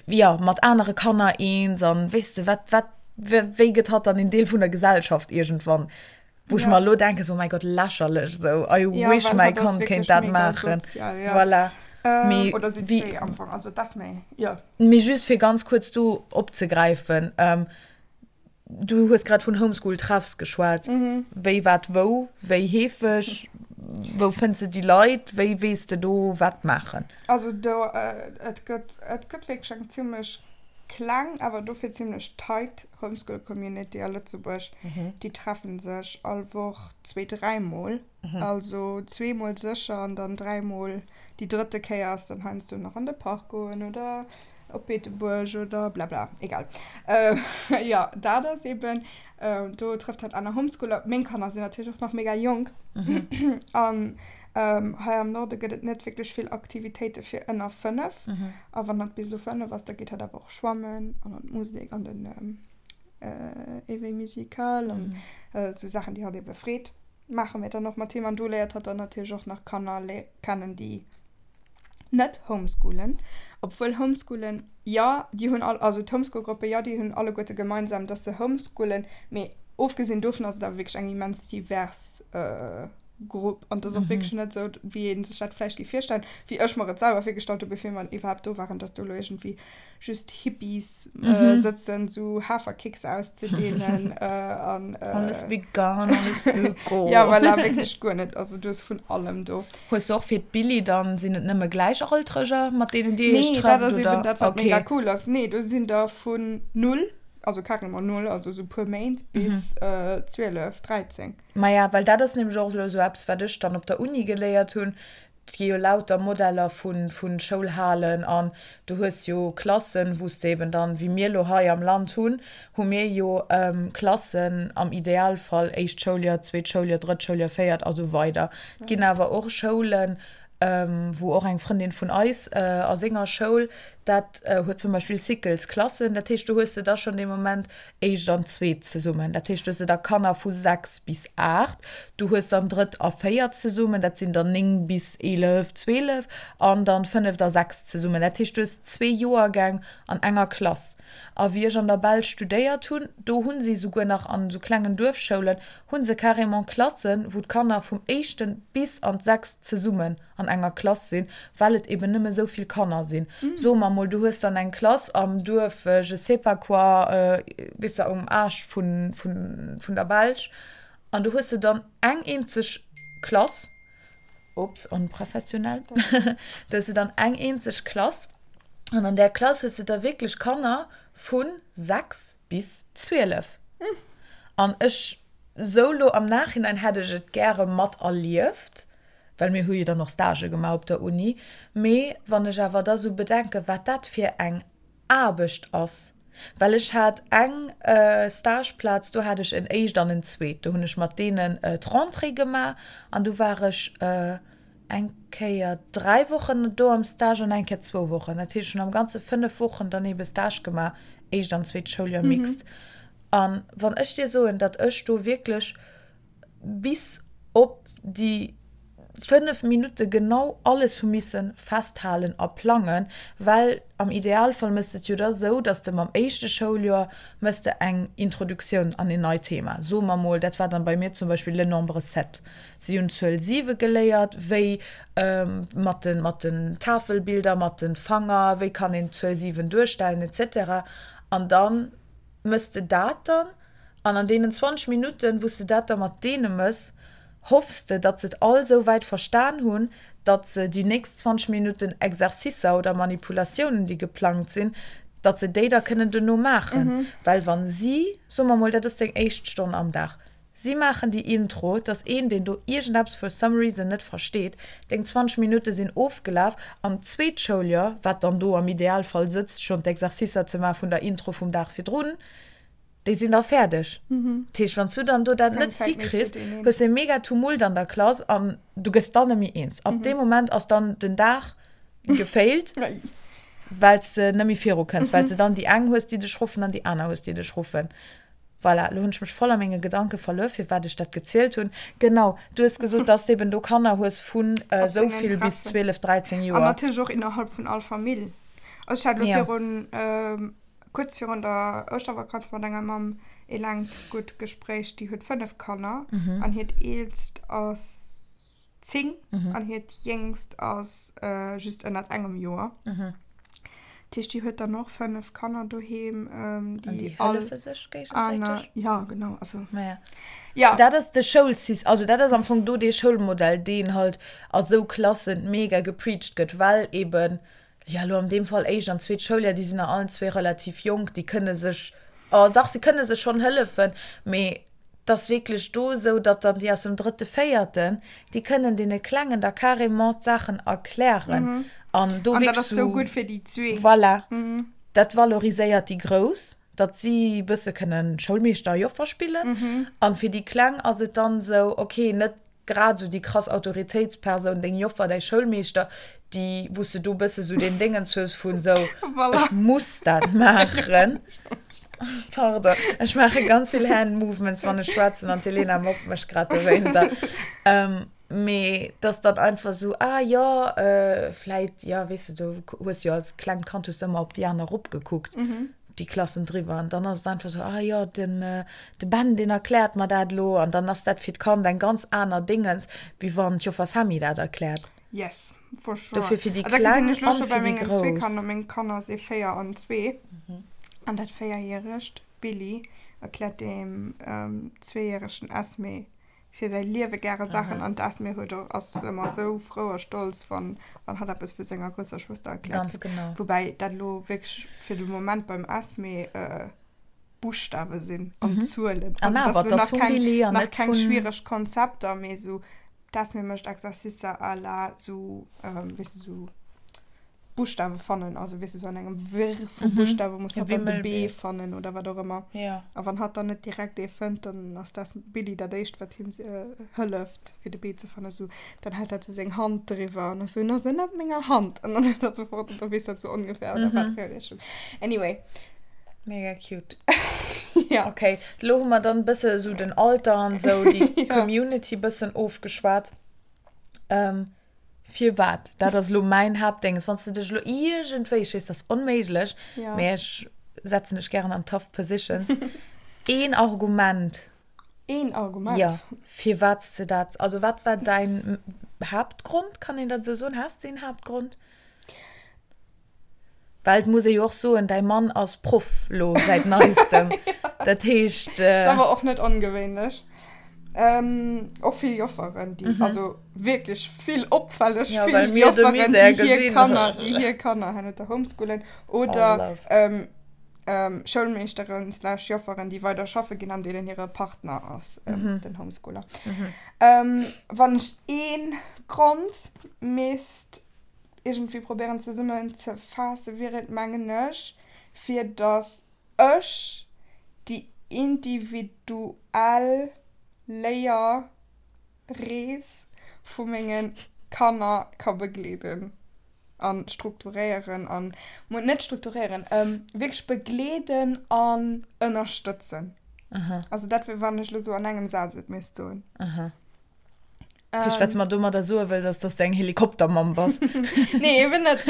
jo, mat anere Kanner eens an weess de, wat, wat, wéi gëtt hatt dann een Deel vun der Gesellschaft iergendwann? Wou ech Ja. mer elo denken, so, oh mäi Gott, lächerlech, sou, I Ja, wish well mäi hatt ass Kand kéint wierklech dat mega maachen. sozial, ja. Voilà. Ähm, Mee oder si wéi, zwee am Fong, also d'Esmée, jo. mee just fir ganz kuerz do opzegräifen, ähm, du hues grad vun Homeschool-Treffs geschwat. Mhm. Wéi, wat, wou, wéi heefeg, wou fënns de déi Leit, wéi weess de do wat maachen? Also do, et gëtt, et gëtt wierklech eng zimmlech kleng, awer dofir zimmlech tight Homeschool Community a Lëtzebuerg, déi treffen sech all Woch zwee, dräimol. Also zweemol sécher an dann dräimol. Déi drëtte Kéier ass dann heiansdo nach an de Park goen oder op Beetebuerg oder blabla, egal. Jo, dat ass eben, do trëfft hatt aner Homeschooler. Meng Kanner sinn natierlech och nach mega jonk an hei am Norde gëtt et net wierklech vill Aktivitéite fir ënner 5. A wann hatt bis elo 5 ass, da geet hatt awer och schwammen an an d'Musek an den Éveil musical an esou Saachen, déi hatt ebe freet, maache mir dann och mat him. An do léiert hatt dann natierlech och nach Kanner kennen, déi net homeschoolen. Obwuel homeschoolen, jo, déi hunn all, also d'Homeschool-Gruppe, jo, déi hunn alleguerte gemeinsam, dass se homeschoolen, mee ofgesinn dovun ass et awer wierklech eng immens divers Grupp an et ass och wierklech net esou, wéi ee sech dat vläicht géif virstellen, wéi ech mer et selwer virgestallt hu bevir mer iwwerhaapt do waren, dass do elo iergendwéi just Hippies sëtzen, esou Haferkicks auszedeelen an. Alles vegan, alles öko. Ja, voilà, wierklech guer net. Also du hues vun allem do. Hues du och fir d'Billi dann, sinn et nëmme Gläichaltreger, mat deenen dir iech Nee, dat trefft, ass eben oder? dat, wat mega Okay. cool ass. Nee, do sinn der vun null, also carrément null, also esou puer Méint, bis 12, 13. Maja, well dat ass nämlech och elo esou eppes, wat ech dann op der Uni geléiert hunn. Et gi jo lauter Modeller vu Schoulhalen an du hues jo Klassen, wou s de eben dann, wéi mir elo hei am Land hunn, hu mir jo Klassen am Idealfall éischt Schouljoer, zweet Schouljoer, drëtt Schouljoer, véiert a sou weider. Et ginn awer och Schoulen, wou och eng Frëndin vun eis a senger Schoul, dat huet zum Beispill Cyclesklassen, dat heescht do hues de da schonn dee Moment éischt an zweet zesummen. Dat heescht, du hues da Kanner vu 6 bis 8, du hues dann drëtt a véiert zesummen, dat sinn dann 9 bis 11, 12, an dann fënneft a sechst zesummen. Dat heescht, du hues zwee Joergäng an enger Klass. A wéi ech an der Belsch studéiert hunn, do hu si souguer nach an esou klengen Duerfschoulen, hu se carrément Klassen, wou d'Kanner vum éischten bis an d'sechst zesummen an enger Klass sinn, well et eben nëmme esou vill Kanner sinn. Soe mer mol, du hues dann eng Klass am Duerf je sais pas quoi, weess de, um Aarsch vun, vun, vun der Belsch, an do hues de dann eng eenzeg Klass, ups, onprofessionell, do hues de dann eng eenzeg Klass, an an där Klass hues de da wierklech Kanner vu 6 bis 12. An ech, sou lo am Nachhinein hätt ech et gäre mat erlieft, well mir hu jo dann och Stagë gemaach op der Uni, mee wann ech awer da sou bedenken, wat dat fir eng Aarbecht ass, well ech hat eng Stageplaz, do hat ech en éischt an en zweet, do hunn ech mat deenen d'Rentrée gemaach an du war ech eng Kéier 3 Wochen do am Stage an eng Kéier zwou Wochen, dat heescht ech hunn am Ganze 5 Wochen dann eebe Stage gemaach, éischt an zweet Schouljoer mixed. An wann ech dir soen, datt ech do wierklech bis op déi 5 Minutte genau alles hu misse festhalen a plangen, well am Idealfall méchs de et jo da sou, dass de mam éischte Schouljoer méchs de eng Introduktioun an een neit Thema. Soe mer mol, dat war dann bei mir zum Beispill le nombre sept. Si hunn d'Zuel 7 geléiert, wéi mat de mat den Tafelbilder, mat de Fanger, wéi kann een d'Zuel 7 duerstellen et cetera. An da méchs de dat dann. An an deenen 20 Minutten, wou s de dat da mat deene mëss, hoffs de, datt se et all esou wäit verstan hunn, datt se déi nächst 20 Minutten Exercicer oder Manipulatiounen, déi geplangt sinn, datt se déi da kënnen duerno maachen. Well wa si, soe mer mol, dat ass deng éischt Stonn am Dag, si maachen déi Intro, et ass een, deen do iergendeppes for some reason net versteet, deng 20 Minutte sinn ofgelaf an d'zweet Schouljoer, wat dann do am Idealfall sëtzt, schonn d'Exercicer ze maache vun der Intro vum Dag virdrun, Déi sinn da fäerdeg. Dat heescht, wann s du dann do dat net hikriss, hues de e mega Tumult an der Klass an du gëss dann net méi eens. Ab deem Moment ass dann den Dag gefailt, well s de net méi viru kënns, well s de dann déi eng hues, déi dech ruffen an déi aner hues, déi dech ruffen. Voilà, elo hunn ech mech voll a menge Gedanke verluer, firwat ech dat gezielt hunn. Genau, du hues gesot, dass s de eben do Kanner hues vun esou vill bis 12, 13 Joer. An natierlech och innerhalb vun all Famill. Also ech hat elo virun Kuerz virun der Ouschtervakanz mat enger Mamm ee laangt gutt Gespréich. Déi huet 5 Kanner an hiert eelst ass 10 an hiert jéngst ass just ënnert engem Joer. Dat heescht, déi huet dann och 5 Kanner doheem, déi all hëllefe sech géigesäiteg. Ja, genau. Also, ja. Ja. Dat ass de Schoulsys-, also dat ass am Fong do dee Schoulmodell, deen halt a sou Klassen mega gepreacht gëtt, well eben Jo, elo an deem Fall éischt an zweet Schouljoer, déi sinn nach allen zwee relativ jonk, déi kënne sech, oh dach, se kënne sech schonn hëllefen, mee et ass wierklech do esou, datt dann déi aus dem drëtte, véierten, déi kënnen deene Klengen da carrément d'Saachen erklären an do wierklech esou. An dat ass esou gutt fir déi zwee. Voilà, dat valoriséiert déi Grouss, datt si e bësse kënnen Schoulmeeschter a Joffer spillen an fir déi Kleng ass et dann esou, okay, net Grad esou déi krass Autoritéitspersoun, deng Joffer, däi Schoulmeeschter, déi, wou s de do e bësse sou deen Déngens hues vun sou, ech muss dat maachen. Pardon, ech maache ganz vill Hand Movements, wann ech schwätzen an d'Elena mobbt mech grad dowéinter. Mee dass dann einfach sou, ah jo, vläit, jo, weess de, du hues jo als klengt Kand hues de ëmmer op déi aner eropgekuckt. déi Klassen driwwer an dann ass et einfach sou, ah jo, den de Ben, deen erkläert mer dat elo an dann ass dat fir d'Kand eng ganz aner Déngens, wéi wann d'Joffer Sammy dat erkläert. Yes, for sure. Dofir fir déi Kleng an fir déi Grouss. Dat gesinn ech elo scho bei mengen zwee Kanner. Meng Kanner si 4 an 2 an dat véierjäregt Billy erkläert deem zweejäregen Esme fir säi Liewe gäre Saachen an d'Esme huet och, ass ëmmer esou frou a stolz, wann, wann hatt eppes vu senger grousser Schwëster erkläert Ganz kritt. genau. Woubäi dat elo wierklech fir de Moment beim Esme Buschtawe sinn an Zuelen. An Also awer, dat ass et elo ass nach vum keng, Billy an nach net keng vun. schwiereg Konzepter, mee esou. D'Esmée mécht Exercicer à la sou, weess de, sou Buschtawe fannen, also weess de, sou an engem Wirr vu Buschtawe muss hatt dann de B fannen oder wat och ëmmer. A wann hatt dann net direkt ee fënnt, dann ass d'Esmée, Billy dat éischt, wat him hëlleft, fir de B ze fannen. Sou, dann hält hatt sou seng Hand driwwer an ass sou, En ass ënnert menger Hand. An dann huet hatt sofort, an da weess hatt sou ongeféier, oder wat fir eng Richtung. Anyway. Mega cute. Ja. Okay, lo hu mer dann e bësse sou den Alter an sou déi Community bëssen ofgeschwat. Ähm, firwat? Dat ass lo mäin Haaptdénges. Wann s du dech lo iergendwéi, ech weess, dat ass onméiglech, Ja. mee ech setzen dech gären an tough positions, een Argument. Een Argument? Ja, firwat s de dat, also wat war däin Haaptgrond, kann een dat esou soen? Has de een Haaptgrond? Well et muss ee jo och soen, däi Mann ass Proff lo säit neistem. Dat heescht. Ass awer och net ongewéinlech. Och vill Jofferen, déi, also wierklech vill, opfälleg vill Jofferen, déi hir Kanner, déi hir Kanner hanner homeschoolen oder Schoulmeeschteren slash Jofferen, déi weider schaffe ginn an deenen hire Partner ass den Homeschooler. Wann ech ee Grond misst iergendwéi probéieren zesummen ze faassen, wier et mengen ech, fir datt ech déi individuell Léierrees vu menge Kanner ka begleeden a strukturéieren an, net strukturéieren, wierklech begleeden an ënnerstëtzen. Also dat wier, wann ech elo sou an engem Saz et misst soen. Heescht, wat s mer domadder soe wëlls, ass, dass de eng Helikoptermamm bass. Nee, eben net.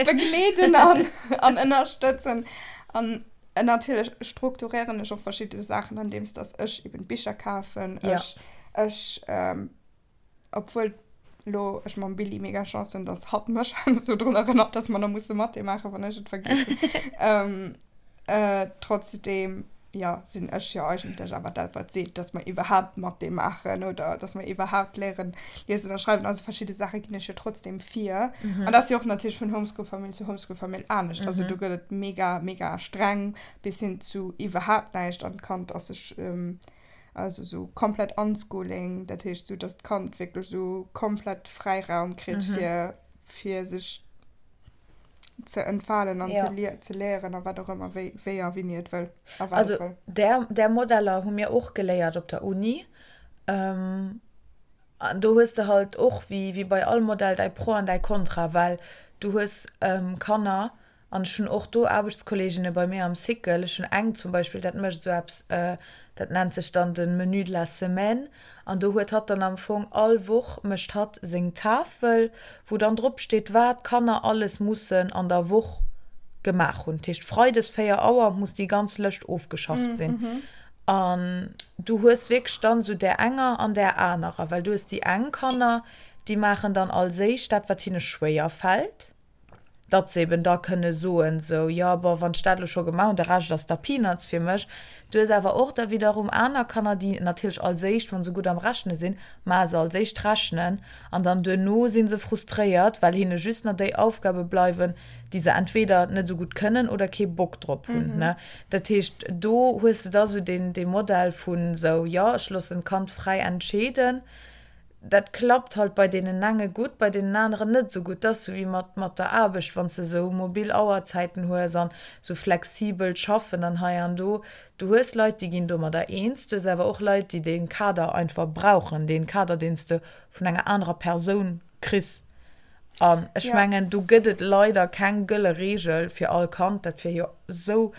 Begleeden an, an ënnerstëtzen. An natierlech strukturéieren ech och verschidde Saachen, andeems dass ech eben Bicher kafen. Ja. Ech, ech, obwuel lo ech mam Billy mega Chance hunn, dass hatt mech heiansdo drun erënnert, dass mer nach musse Mathé maachen, wann ech et vergiessen. Trotzdem, jo, sinn ech jo eigentlech awer dat, wat seet, dass mer iwwerhaapt Mathé maachen oder dass mer iwwerhaapt léieren liesen a schreiwen. Also verschidde Saache ginn ech jo trotzdem vir. An dat ass jo och natierlech vun Homeschool-Famill zu Homeschool-Famill anescht. Also do gëtt et mega, mega streng bis hin zu iwwerhaapt näischt an d'Kand ass sech, also sou komplett Unschooling, dat heescht sou, dass d'Kand wierklech sou komplett Fräiraum kritt fir, fir sech ze entfalen an ja. ze, ze léieren a wat och ëmmer, wéi, wéi a wéini et wëll. A wat also, et wëll. Där, där Modeller hu mir och geléiert op der Uni. Ähm, an do hues de halt och, wéi, wéi bei all Modell, däi Pro an däi Kontra, well du hues ähm, Kanner, an ech hunn och do Aarbechtskolleeginne bei mir am Cycle, ech hunn eng zum Beispill, dat mécht esou eppes, äh, dat nennt sech dann de Menu de la semaine, An do huet hatt dann am Fong all Woch mécht hatt seng Tafel, wou dann drop steet, wat d'Kanner alles mussen an der Woch gemaach hunn. Dat heescht, freides 4 Auer muss déi ganz Lëscht ofgeschafft sinn. An du hues wierklech dann esou där enger an där anerer, well du hues déi eng Kanner, déi maachen dann als éischt dat, wat hinne schwéier fält. datt se eben da kënne soen, sou, jo, bon, wann ech dat elo scho gemaach hunn, de Rescht ass da Peanuts fir mech. Du hues awer och da wiederum aner Kanner, déi natierlech als éischt, wa se gutt am Rechne sinn, maache se als éischt d'Rechnen an dann duerno si se frustréiert, well hinne just nach déi Aufgabe bleiwen, déi se entweder net esou gutt kënnen oder kee Bock drop hunn, ne. Dat heescht, do hues de da sou deen, dee Modell vun sou, jo, ech loossen d'Kand fräi entscheeden. Dat klappt halt bei deenen enge gutt, bei deenen aneren net esou gutt. Dat ass sou wéi mat, mat der Aarbecht, wann s de sou mobil Auerzäiten hues an sou flexibelt Schaffen an hei an do. Du hues Leit, déi ginn domadder eens, du hues awer och Leit, déi dee Kader einfach brauchen, dee Kader, deen s de vun enger anerer Persoun kriss. An ech mengen, do gëtt et leider keng gëlle Reegel fir all Kand. Dat wier jo sou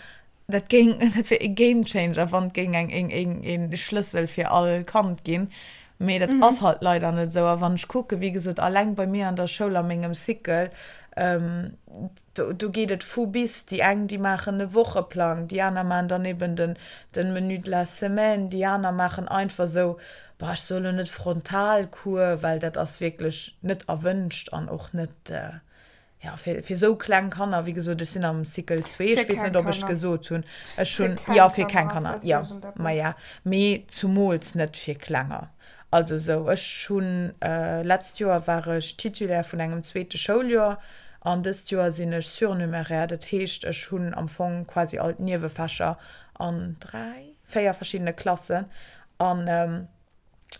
Dat géing, dat wier e Game Changer, wann et géing eng, een, een, een Schlëssel fir all Kand ginn. Mee dat ass halt leider net esou. A wann ech kucken, wéi gesot, alleng bei mir an der Schoul a mengem Cycle, do, do geet et vu bis. Déi eng, déi maachen e Wocheplang, déi aner maachen dann eben den, den Menu de la semaine, déi aner maachen einfach esou, boah, ech soe lo net Frontalcours, well dat ass wierklech net erwënscht an och net, Ja, fir, fir sou kleng Kanner, wéi gesot, ech sinn am Cycle 2, ech weess net, ob ech et gesot hunn. Ech hunn, jo, fir keng Kanner, jo, maja, mee zumools net fir Klenger. Also sou, ech hunn, letzt Joer war ech Titulaire vun engem zweete Schouljoer an dëst Joer sinn ech Surnuméraire, dat heescht, ech hunn am Fong quasi all d'Niewefächer an 3, 4 verschiddene Klassen an.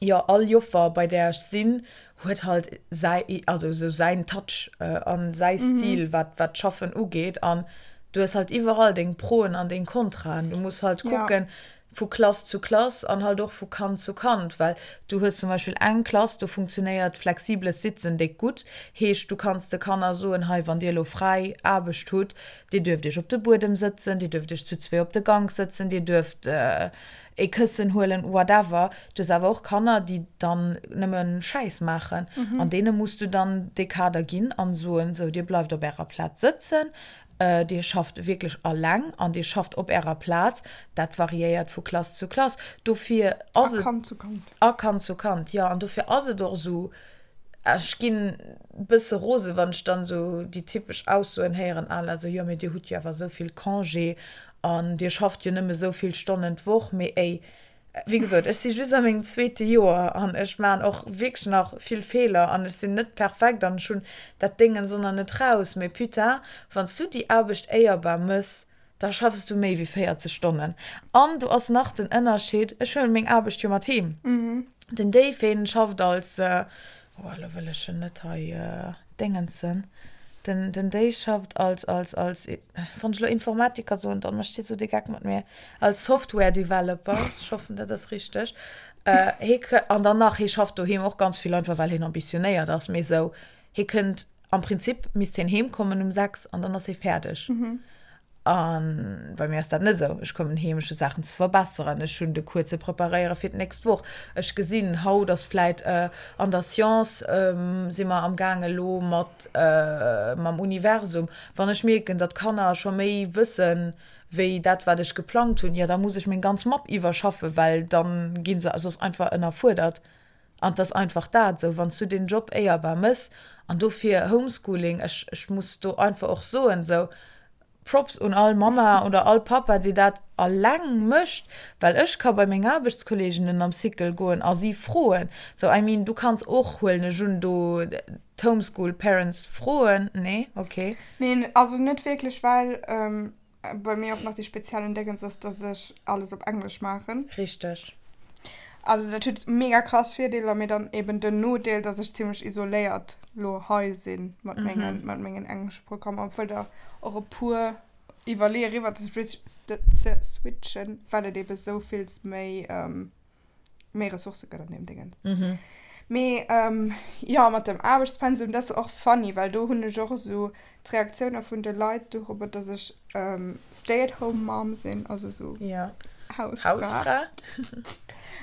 Jo, all Joffer bei där ech sinn, huet halt säi, also esou säin Touch an säi Stil, wat wat d'Schaffen ugeet. An du hues halt iwwerall deng Proen an deng Kontraen. Du muss halt kucken vu Klass zu Klass an halt och vu Kand zu Kand, well du hues zum Beispill eng Klass, do funktionéiert flexibles Sitzen déck gutt. Heescht, du kanns de Kanner soen, hei, wann dir elo fräi Aarbecht hutt, dir duerft iech op de Buedem sëtzen, dir duerft iech zu zwee op de Gank sëtzen, dir duerft ee Këssen huelen, whatever. Du hues awer och Kanner, déi dann nëmme Schäiss maachen. An deene muss du dann dee Kader ginn an soen, sou, dir bleift op ärer Plaz sëtzen, dir schafft wierklech alleng an dir schafft op ärer Plaz. Dat variéiert vu Klass zu Klass. Dofir ass et. A Kand zu Kand. A Kand zu Kand, jo. An dofir ass et och esou, ech ginn e bësse rose wann ech dann esou déi typesch Aussoen héieren à la sou, jo mee dir hutt jo awer esou vill Congé an dir schafft jo nëmme esou vill Stonnen d'Woch. Mee éi, wéi gesot, ech si just a mengem zweete Joer an ech maachen och wierklech nach vill Feeler an ech sinn net perfekt an ech hunn dat Déngens och nach net raus. Mee putain, wann s du déi Aarbecht éierbar mëss, da schaffs du méi wéi 40 Stonnen. An do ass nach den Ënnerscheed, ech huelen meng Aarbecht jo mat heem. Den Dave, hien schafft als, oh elo wëll ech en net hei déngensen, den, den Dave schafft als, als, als, wann ech elo Informatiker soen, dann mécht hie sou de Geck mat mir, als Software Developer, ech hoffen dat ass richteg, hie kë, an dann nach, hie schafft doheem och ganz vill, einfach well hien ambitionéiert ass, mee sou, hie kënnt, am Prinzip misst hien heem kommen um 6 an dann ass hie fäerdeg. A bei mir ass dat net esou. Ech kommen heem, ech hu Saachen ze verbesseren, ech hunn de Cours ze preparéiere fir d'nächst Woch. Ech gesinn, haut ass vläit an der Science si mer am gaang elo mat mam Universum. Wann ech mierken, datt d'Kanner scho méi wëssen, wéi dat wat ech geplangt hunn, jo da muss ech meng ganz Mapp iwwerschaffen, well da gi se soss einfach ënnerfuerdert. An 't ass einfach dat esou, wann s du deen Job éierbar mëss, an dofir Homeschooling, ech, ech muss do einfach och soen, esou Props un all Mamma oder all Pappa, déi dat alleng mécht, well ech ka bei meng Aarbechtskolleeginnen am Cycle goen a si froen, sou, I mean, du kanns och, huelen ech un, do d'Homeschool Parents froen, nee? Okay. Neen, also net wierklech, well Bei mir och nach dee speziellen Déngens ass, dass ech alles op Englesch maachen. Richteg. Also dat huet mega krass Virdeeler, mee dann eben den Nodeel, dass ech zimmlech isoléiert lo hei sinn mat mengen, mat mengen englesche Programmer, obwuel der och e puer iwwerleeë riwwer ze switchen, well et ebe sou vills méi méi Ressourcë gëtt an deem Dingens. Mhm. Mee ähm, jo, mat dem Aarbechtspensum, dat ass och funny, well do hunn ech och esou d'Reaktioune vun de Leit dorobber, dass ech ähm, Stay-at-home-Mom sinn, also esou ja. Hausfra. Hausfra.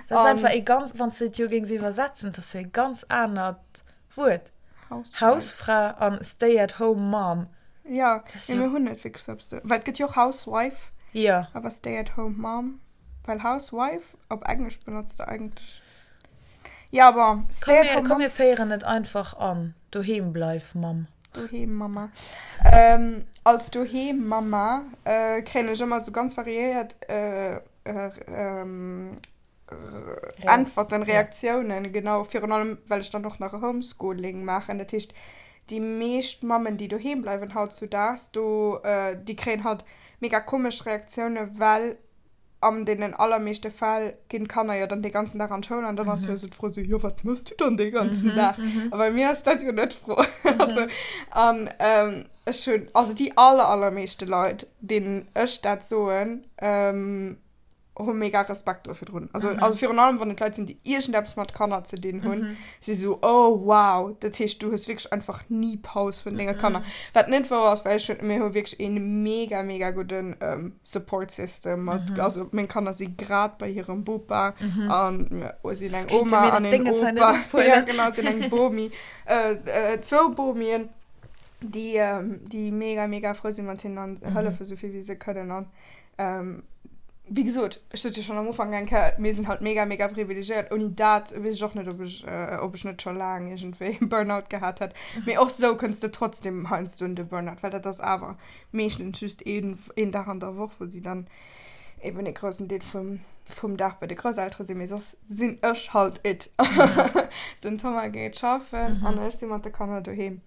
Dat ass einfach ee ganz, wann s de et jo géings iwwersetzen, dat ass jo ee ganz anert Wuert. Hausfra. Hausfra an Stay-at-home-Mom. Ja, mee mir hunn net wierklech esou eppes do, well et gëtt jo och Housewife. Ja. Awer Stay-at-home-Mom. Well Housewife op Englesch benotzt de eigentlech. Ja, bon, Stay at home Komm, mir féieren et einfach an. Doheem bleif, Mamm. Doheem Mamma. Ähm, als Doheem Mamma äh, kréien ech ëmmer sou ganz variéiert äh, ähm, Äntwerten, Reaktiounen, genau. Virun allem, well ech dann och nach e Homeschooling maachen. Dat heescht, déi meescht Mammen, déi doheem bleiwen hautzudaags, do, déi kréien halt mega komesch Reaktiounen, well an deenen allermeeschte Fäll ginn d'Kanner jo dann dee ganzen Dag an d'Schoul an dann ass jo esou d'Fro esou, jo wat mëss du dann dee ganzen Dag? A bei mir ass dat jo net d'Fro. Also, an ech hunn, also déi aller, allermeeschte Leit, deenen ech dat soen, hu mega Respekt do virdrun. Also, also virun allem, wann et Leit sinn, déi iergendeppes mat Kanner ze dinn hunn, si sou, oh wow, dat heescht, du hues wierklech einfach ni Paus vun denge Kanner. Wat net wouer ass, well ech hunn, mir hu wierklech ee mega, mega gudden Support System mat, also meng Kanner si grad bei hirem Bopa an mir sinn eng Oma an een Opa, ja genau, sinn eng Bomi, zwou Bomien, déi, déi mega, mega frou si mat hinnen an hëllefe sou vill wéi se kënnen an Wéi gesot, ech sot jo schonn am Ufank eng Kéier, mir sinn halt mega, mega privilegiéiert. Ouni dat weess ech och net, ob ech, ob ech net scho laang iergendwéi e Burnout gehat hätt. Mee och sou kënns de trotzdem heiansdo un de Burnout, well dat ass awer meeschtens just een, een Dag an der Woch, wou si dann eben e groussen Deel vum, vum Dag bei de Grousseltere sinn. Mee soss sinn ech halt it. Den Thomas geet schaffen an ech si mat de Kanner doheem.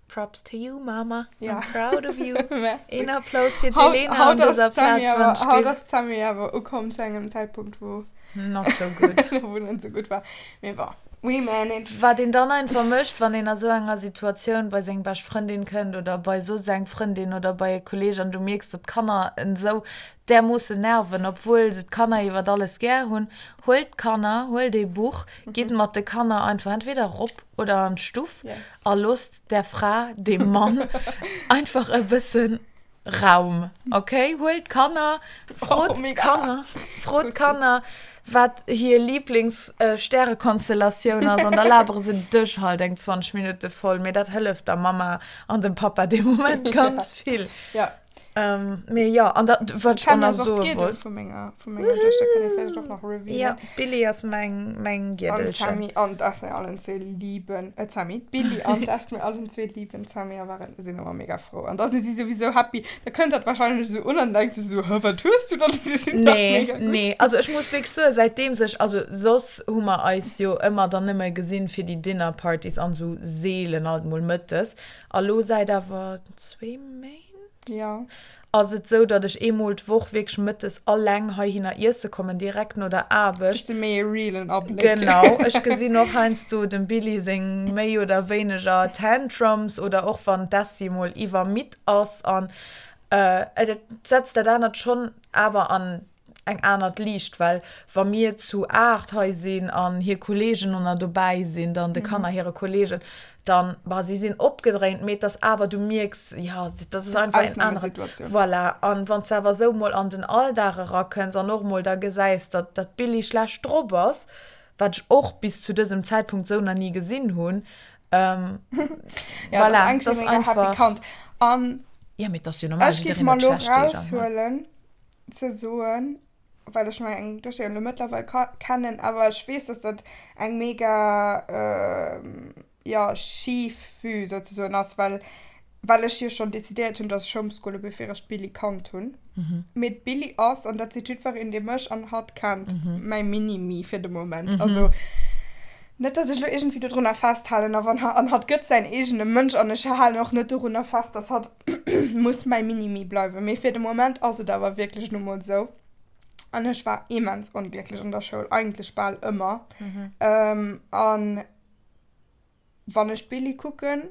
Props to you, Mama. Ja. I'm proud of you. Merci. Een Applaus fir Haut, d'Elena haut an dëser ass d'Sammy Plaz, awer, wann haut still. ass d'Sammy awer ukomm zu engem Zäitpunkt, wou Not so good. wou net sou gutt war. Mee bon, we manage. Wat een dann einfach mécht, wann een a sou enger Situatioun bei seng bescht Frëndin kënnt oder bei soss eng Frëndin oder bei e Kolleeg an du mierks, datt d'Kanner en sou därmoossen nerven, obwuel se d'Kanner iwwert alles gär hunn, huelt d'Kanner, huelt ee Buch, gitt mat de Kanner einfach entweder erop oder an d'Stuff Yes. a loosst der Fra, dem Mann einfach e bëssen Raum, ok? Huelt d'Kanner, frot Oh, mega. d'Kanner, frot d'Kanner, wat hir Lieblings-Stärekonstellatioun ass an da labere se dech halt eng 20 Minutte voll, mee dat hëlleft der Mamma an dem Pappa dee Moment ganz vill. Ja. Ähm, mee jo, an da, wat ech och D'Sammy nach ass och soe d'Giedel wollt. vu menger, vu menger Duechter, kann ee vläicht och nach revealen. Ja, d'Billy ass meng, meng An Giedelchen. d'Sammy an d'Esme allen zwee liben, äh, d'Sammy, d'Billy an d'Esme allen zwee liben d'Sammy a waren, sinn ëmmer mega frou. An da si si souwisou happy. Da kënnt dat wahrscheinlech esou un an denkt se esou, Hä, wat hues du dann? Si sinn dach Nee, mega gutt. nee, also ech muss wierklech soen, säitdeems ech, also soss hu mer eis jo ëmmer dann nëmme gesinn fir déi Dinner-Partys an esou seelen alt mol mëttes. A lo säit awer zwee Méint? Ja. Ass et sou, datt ech eemol d'Woch wierklech mëttes alleng heihinner iesse kommen, direkt no der Aarbecht. Kriss de méi e realen Abléck. Genau. Ech gesinn och heiansdo dem Billy seng méi oder wéineger Tantrums oder och wann d'Essie mol iwwermidd ass an et setzt dat anert schonn awer an eng anert Liicht, well wa mir zu 8 hei sinn an hir Kolleegen och nach dobäi sinn, dann de Kanner hire Kolleegen, dann, bah, si sinn opgedréint, mee et ass awer, du mierks, jo, dat ass einfach en aneren, voilà. An wann s de awer esou mol an den Alldag erakënns an och mol da gesäis, datt datt d'Billie schlecht drop ass, wat ech och bis zu dësem Zäitpunkt esou nach ni gesinn hunn, Ja, voilà, dat dat ass ass mega happy einfach. Kand. An Ja, mee et ass jo normal, ech géif jiddereen mer huet elo schlecht Deeg an, ne? raushuelen ze soen, well ech meng Duechter jo elo mëttlerweil kennen, awer ech weess, dass dat eng mega, jo, schif Vue souzesoen ass, well, well ech jo schonn decidéiert hunn, dass ech homeschoole bevir ech d'Billie kannt hunn. Mee d'Billie ass, an dat seet jiddwereen, dee mech an hatt kennt, mäi Mini-Me fir de Moment. Also net, dass ech elo iergendwéi dodrunner festhalen, a wann, an hatt gëtt säin eegene Mënsch an ech halen och net dorunner fest, dass hatt muss mäi Mini-Me bleiwen. Mee fir de Moment ass et awer wierklech nu mol esou. An ech war immens onglécklech an der Schoul, eigentlech bal ëmmer. An wann ech d'Billie kucken,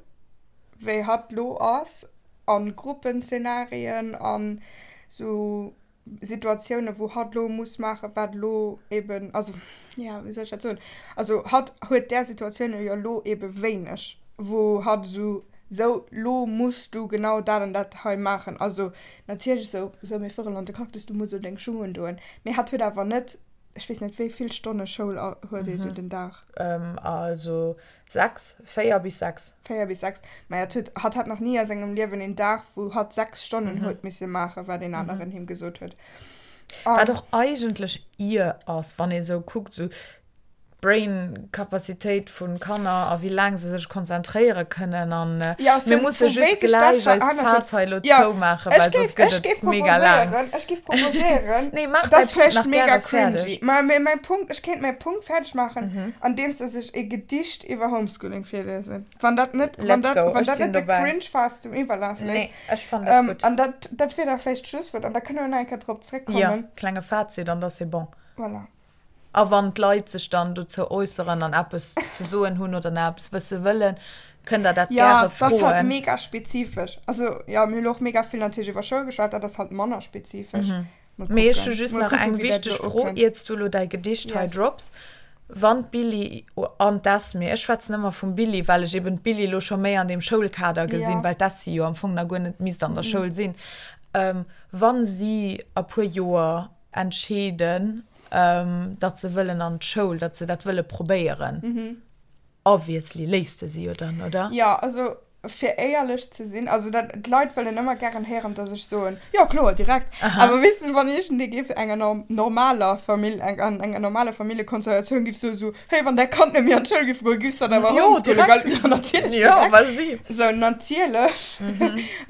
wéi hatt lo ass, a Gruppenzeenarien an sou Situatiounen, wou hatt lo muss maachen, wat lo eben, also, ja, wéi soll ech dat soen? Also hatt huet där Situatiounen jo lo ebe wéineg, wou hatt esou, sou, lo muss du genau dat an dat hei maachen. Also natierlech sou, sou, mir fueren an de Cactus, du muss elo deng Schung undoen. Mee hatt huet awer net, ech weess net, wéi vill Stonne Schoul huet ee sou den Dag? Also 6, 4 bis 6. 4 bis 6. Maja, et huet, hatt hat nach ni a sengem Liewen een Dag, wou hatt 6 Stonnen huet misse maachen, wat een aneren him gesot huet. Wat och eigentlech ier ass, wann ee sou kuckt, sou d'Brain-Capacitéit vu Kanner a wéi laang se sech konzentréiere kënnen. An Ja, mir vu, musse vu wéi just sech dat gläich eist verännert huet. Faass hei elo Ja, zoumaachen, ech well soss géif, gëtt ech géif et mega laang. proposéieren, ech géif proposéieren, Nee, maach dat däi ass Punkt vläicht nach mega gäre cringy, fäerdeg. mä mä mäi Punkt, ech kéint mäi Punkt fäerdeg maachen, andeems dass ech e Gedicht iwwer Homeschooling virliesen. Wann dat net, wann Let's dat, go, wann ech dat sinn net de dobäi. Cringe-Faass zum Iwwerlafe léisst. Nee, ech fannen dat Ähm, gutt. an dat, dat wier da vläicht d'Schlusswuert an da kënne mir nach eng Kéier drop Jo, zréckkommen. klenge Fazit an da c'est bon. Voilà. A wann d'Leit sech dann dozou äusseren an eppes ze soen hunn oder nach eppes wësse wëllen, kënnt der dat Ja, gäre dat ass halt froen. mega spezifesch. Also, jo, mir hu lo och mega vill natierlech iwwer Schoul geschwat, dat ass halt manner spezifesch. Mol Mee ech hu kucken. just Mol nach kucken, eng wéi dat wichteg elo Fro, ukënnt. iert s du elo däi Gedicht hei Yes. drops. Wann d'Billie an d'Esmee, ech schwätzen ëmmer vum Billie, well ech eben d'Billie elo scho méi an deem Schoulkader gesinn, Ja. well d'Essie jo am Fong nach guer net misst an der Schoul sinn, wa si a puer Joer entscheeden, datt se wëllen an d'Schoul, datt se dat wëlle probéieren. Obviously léisst de si jo dann, oder? Jo, also fir éierlech ze sinn, also dat, d'Leit wëllen ëmmer gären héieren, datt ech soen, jo kloer, direkt. Awer weess de, wann iergendee géif enger normaler Famill, an enger normaler Familljekonstellatioun géif soen, esou, hey, wann däi Kand net méi an d'Schoul géif goen, giffs de dann awer Jo, homeschoolen, direkt. gell? Jo, natierlech, Jo, direkt. wa si. Sou, natierlech.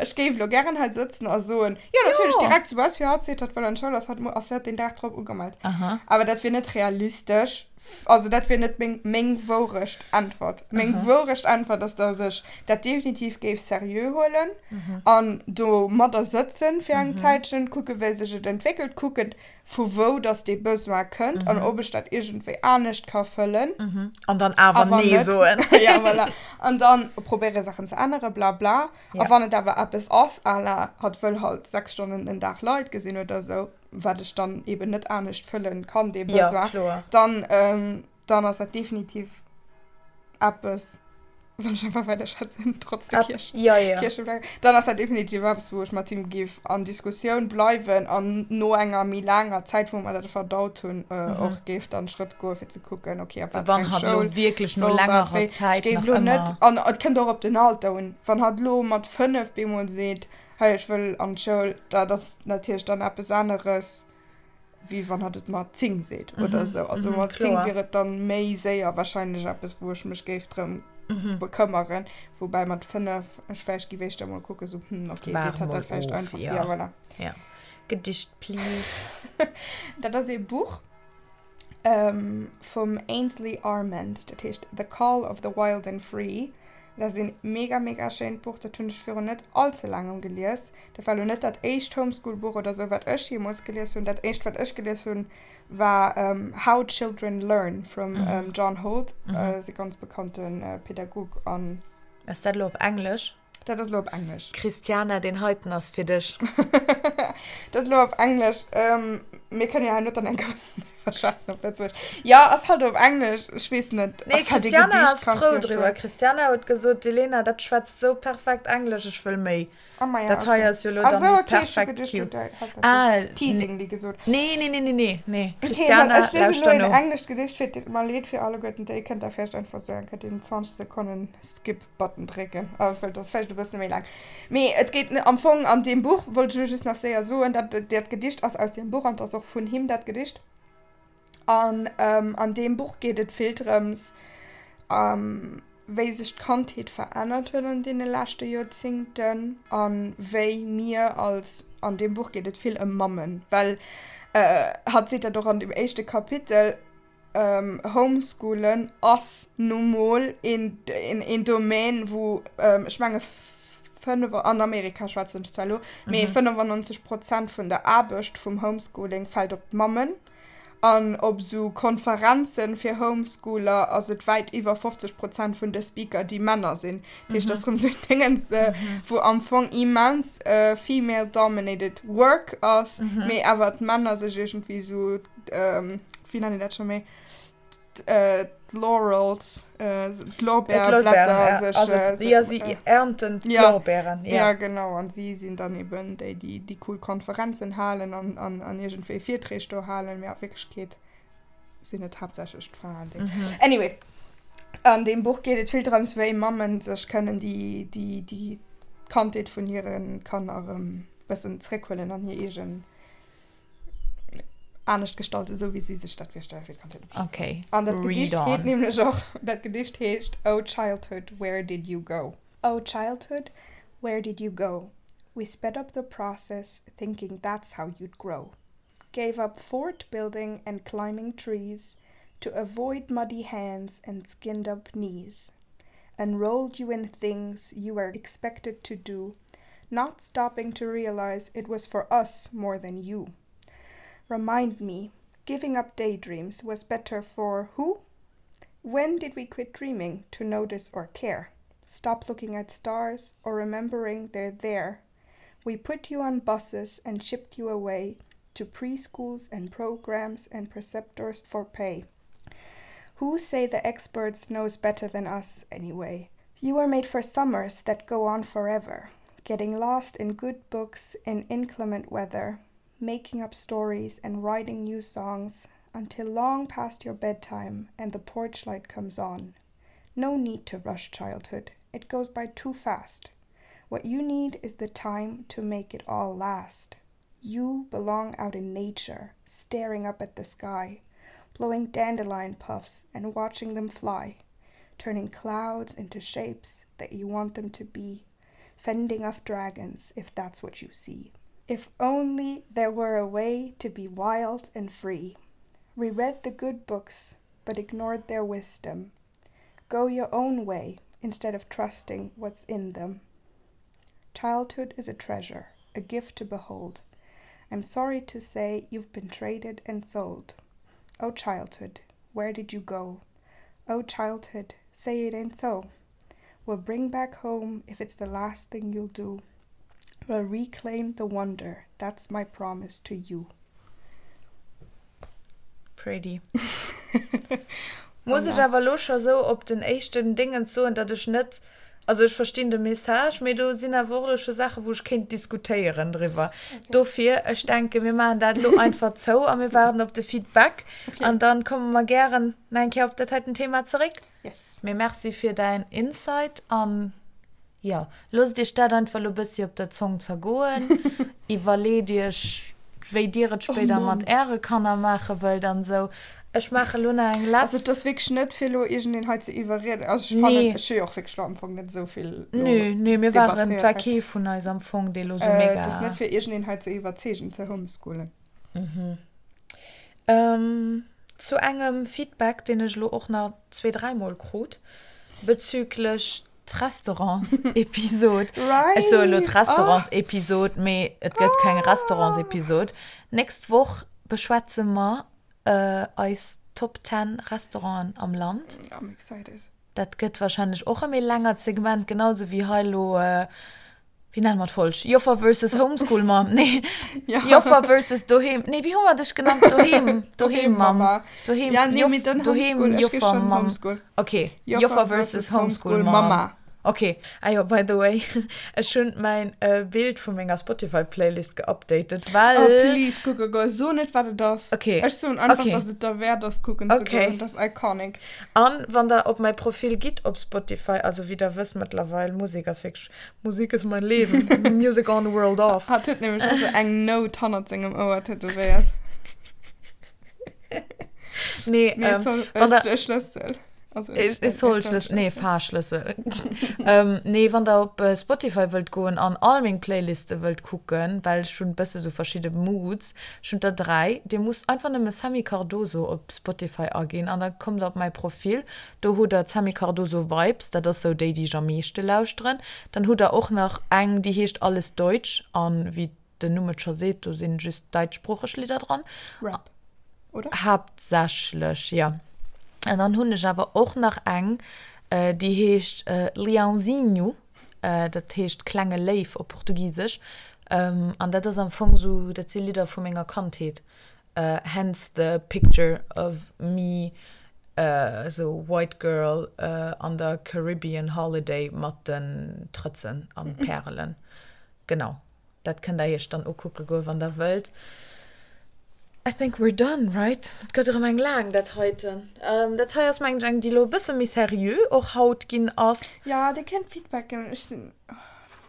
Ech géif elo gären hei sëtzen a soen, Jo, natierlech, Jo. direkt, soubal fir hatt seet, hatt wëll an d'Schoul, ass hatt, ass hatt deen Dag drop ugemellt. Aha. Awer dat wier net realistesch. Also dat wier net meng, meng Wourecht Äntwert. Meng Wourecht Äntwert ass, dass ech dat definitiv géif seriö huelen an domadder sëtzen fir eng Zäitchen, kucken, wéi sech et entwéckelt, kucken, vu wou dass dee Besoin kënnt an ob ech dat iergendwéi anescht ka fëllen. An dann awer Nee soen. Ja, voilà. An dann probéiere Saachen ze änneren, bla bla. A wann et awer eppes ass à la hatt wëll halt 6 Stonnen den Dag Leit gesinn oder esou, wat ech dann eben net anescht fëllen kann, dee Besoin, ja, dann, ähm, dann ass dat definitiv eppes, soll ech einfach weider schwätzen, trotz der Kierch? Ja, ja. Kiercheflagge. Dann ass dat definitiv eppes, wou ech mat him géif an Diskussioun bleiwen an no enger méi laanger Zäit, wou mer dat verdaut hunn, äh, mhm. och géif dann Schrëtt goe fir ze kucken, okay, ab wat fir eng Schoul, wierklech no längerer Zäit ech géif lo net, an et kënnt och op den Alter un, wann hatt lo mat 5 bemol seet, Hei, ech wëll an d'Schoul, dat ass natierlech dann eppes aneres, wéi wann hatt et mat 10 seet oder esou. Also mat 10 wier et dann méi séier warscheinlech eppes, wou ech mech géif drëm bekëmmeren. Woubäi mat 5 ech vläicht géif éischter mol kucken, esou, hm, okay, seet hatt dat vläicht einfach. Ja, voilà. Ja. Gedicht, please. Dat ass ee Buch vum Ainsley Armand, dat heescht The Call of the Wild and Free. Dat ass een mega mega schéint Buch, dat hunn ech virun net all ze laangem gelies. Dat war elo net dat éischt Homeschool Buch oder sou wat ech jeemools gelies hunn. Dat éischt wat ech gelies hunn war How Children Learn vum John Holt, ass e ganz bekannte Pädagog an. Ass dat elo op Englesch? Dat ass elo op Englesch. Christiana, deen heiten ass fir dech. Dat ass elo op Englesch. Mir kënnen jo hei net dann eng Kéier iwwer schwätzen op Lëtzebuergesch. Jo, ass halt op Englesch. Ech weess net. Nee, Christiana ass frou driwwer. Christiana huet gesot, D'Elena, dat schwätzt sou perfekt Englesch, ech wëll méi. Oh maja, Dat hei ass jo elo dann déi perfekt Cue. Ah, Teasingly gesot. Nee, nee, nee, nee, nee, nee. Christiana, okay, ech liesen elo en englescht Gedicht fir. Et deet mer leed fir alleguerten déi. Kënnt der vläicht einfach sou eng Kéier deen 20 Sekonnen Skip Button drécken, well dat ass vläicht e bësse méi laang. Mee et geet am Fong an deem Buch, wollt ech elo just nach séier soen, dat dat Gedicht ass aus deem Buch an et ass och vun him dat Gedicht. An an deem Buch geet et vill drëms, wéi sech d'Kandheet verännert huet an deene leschte Joerzingten a wéi mir als, an deem Buch geet et vill ëm Mammen, well hatt seet dat och an deem éischte Kapitel, Homeschoolen ass nu mol een Domaine, wou, ech menge an Amerika schwätzen ech zwar elo, mee 95 Prozent vun der Aarbecht vum Homeschooling fält op d'Mammen. An op esou Konferenze fir Homeschooler ass et wäit iwwer 50 Prozent vun de Speaker, déi Männer sinn. Dat heescht, dat ass erëm esou en Déngens, wou am Fong immens female dominated work ass, mee awer d'Männer sech iergendwéi esou wéi nennen dat scho méi d'Laurels d'Lorbeerblätter sech also ja si ernten d'Lorbeeren ja genau an si sinn dann eben déi déi déi cool Konferenzen halen an an an iergendwéi Virträg do halen mee a Wierklechkeet sinn et haaptsächlech d'Fraen déi anyway an deem Buch geet et vill drëms wéi Mammen sech kënnen déi déi déi d'Kandheet vun hire Kanner erëm bëssen zréckhuelen an hir eegen anescht gestalten, esou wéi si sech dat virstellen fir d'Kandheet. Okay. An dat Gedicht heet nämlech och, dat Gedicht heescht Oh Childhood, Where Did You Go? Oh Childhood, where did you go? We sped up the process, thinking that's how you'd grow. Gave up fort building and climbing trees to avoid muddy hands and skinned up knees. Enrolled you in things you were expected to do, not stopping to realize it was for us more than you. Remind me, giving up daydreams was better for who? When did we quit dreaming to notice or care? Stop looking at stars or remembering they're there. We put you on buses and shipped you away to preschools and programs and preceptors for pay. Who say the experts knows better than us anyway? You were made for summers that go on forever, getting lost in good books in inclement weather, making up stories and writing new songs until long past your bedtime and the porch light comes on. No need to rush childhood. It goes by too fast. What you need is the time to make it all last. You belong out in nature, staring up at the sky, blowing dandelion puffs and watching them fly, turning clouds into shapes that you want them to be, fending off dragons if that's what you see. If only there were a way to be wild and free. Reread the good books. But ignored their wisdom. Go your own way instead of trusting what's in them. Childhood is a treasure, a gift to behold. I'm sorry to say you've been traded and sold. Oh childhood, where did you go? Oh childhood, say it ain't so. We'll bring back home if it's the last thing you'll do. We'll reclaim the wonder, that's my promise to you. Pretty. Muss ech awer elo scho sou op den éischten Dingens soen, datt ech net, also ech verstinn de Message, mee do sinn awer och elo scho Saachen, wou ech kéint diskutéieren driwwer. Dofir, ech denken, mir maachen dat elo einfach zou a mir waarden op de Feedback an dann komme mer gären nach eng Kéier op dat heiten Thema zeréck. Yes. Mee merci fir däin Insight an jo, loosst iech dat einfach elo bëssi op der Zong zergoen. Iwwerleet iech, wéi dir et spéider mat äre Kanner maache wëllt an esou. Ech maache lo nach eng letzt. Also et ass wierklech net fir elo iergendeen hei ze iwwerrieden. Also ech fannen, ech hu jo och wierklech elo am Fong net esou vill elo Nö, nö, mir waren, et war kee vun eis am Fong, dee lo esou mega. Et ass net fir iergendeen hei ze iwwerzeegen ze homeschoolen. Zu engem Feedback, deen ech elo och nach zwee, dräimol krut, bezüglech d'Restaurantsepisod. Ech soe elo d'Restaurantsepisod, mee et gëtt keng Restaurantsepisod. D'nächst Woch beschwätze mer eis Top 10 Restauranten am Land. I'm excited. Dat gëtt warscheinlech och e méi längert Segment, genau sou wéi hei elo Wéi nenne mer d'Folg? Joffer versus Homeschool Mom? Nee. Ja. Joffer versus Doheem. Nee, wéi hu mer dech genannt? Doheem. Doheem Mom. Doheem. Ja, nee, mee dann Doheem Homeschool. Ech gi Joffer schon Mom. Homeschool. Okay. Joffer Joffer versus versus Homeschool Homeschool Mom. Mama. Okay. Ah jo, by the way, ech hunn mäin Bild vu menger Spotify Playlist geupdatet, well. Oh please, kucke goen. So net wat et ass. Okay. Ech soen einfach, Okay. dass et derwäert ass kucken ze Okay. goen. Dat ass iconic. An wann der op mäi Profil gitt op Spotify, also wéi der wësst mëttlerweil, Musek ass wierklech Musik ist mein Leben, Music on, world off. Hatt huet nämlech och sou eng Nout hannert sengem Ouer tätowéiert. Nee, Nee, ähm, soll, wann der, e Schlëssel. Also, e, e Soll-Schlëssel, nee, Fahrschlëssel. ähm, nee, wann der op äh, Spotify wëllt goen an all meng Playliste wëllt kucken, well ech hunn bësse sou verschidde Moods, ech hunn der 3, dir musst einfach nëmme Sammy Cardoso op Spotify aginn an da kommt der op mäi Profil. Do hutt der d'Sammy Cardoso Vibes, dat ass sou déi, déi ech am meeschte lauschteren. Dann hutt der och nach eng, déi heescht Alles Deutsch an wéi den Numm et scho seet, do sinn just däitschsproocheg Lidder dran. Rap, oder? Haaptsächlech, jo. An dann hunn ech awer och nach eng, déi heescht Leãozinho, dat heescht klenge Léiw op Portugisesch. An dat ass am Fong sou, dat si Lidder vu menger Kandheet. Hence the picture of me sou white girl an der Caribbean holiday mat den Trëtzen an Pärelen. Genau, dat kënnt der iech dann ukucke goen, wann der wëllt. I think we're done, right? Et gëtt erëm eng laang, dat heiten. Dat hei ass mengen ech eng, déi elo e bësse méi seriö och haut ginn ass. Jo, dir kënnt Feedback ginn. Ech sinn.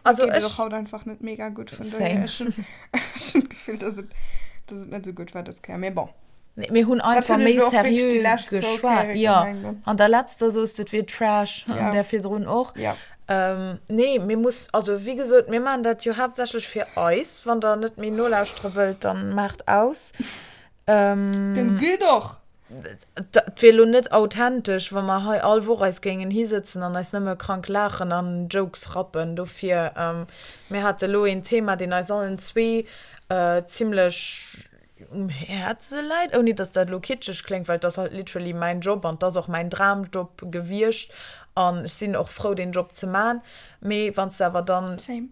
Also Mir geet et ech. och haut einfach net mega gutt, vun Same. dohier ech hunn ech hunn d'Gefill, dass et dass et net esou gutt war dës Kéier, mee bon. Nee, mir hunn Dat einfach hunn ech méi elo och wierklech seriö déi lescht zwou geschwat. Kéiere Jo, gemengt, ne? an der letzter soos de, et wier Trash, an Ja. där virdrun och. Ja. Ähm, nee, mir muss, also wéi gesot, mir maachen dat jo haaptsächlech fir eis. Wann der net méi nolauschtere wëllt, dann maacht aus. Ähm, Dann gitt och! Et wier elo net authentesch, wa mer hei all Woch eis géingen hisëtzen an eis nëmme krank laachen an Jokes rappen. Dofir, mir hate elo een Thema, deen eis allen zwee zimlech um Häerze läit, ouni datt dat elo kitscheg kléngt, well et ass halt literally mäin Job an et ass och mäin Dramjob gewiescht an ech sinn och frou, deen Job ze man. Mee wann s de awer dann. Same.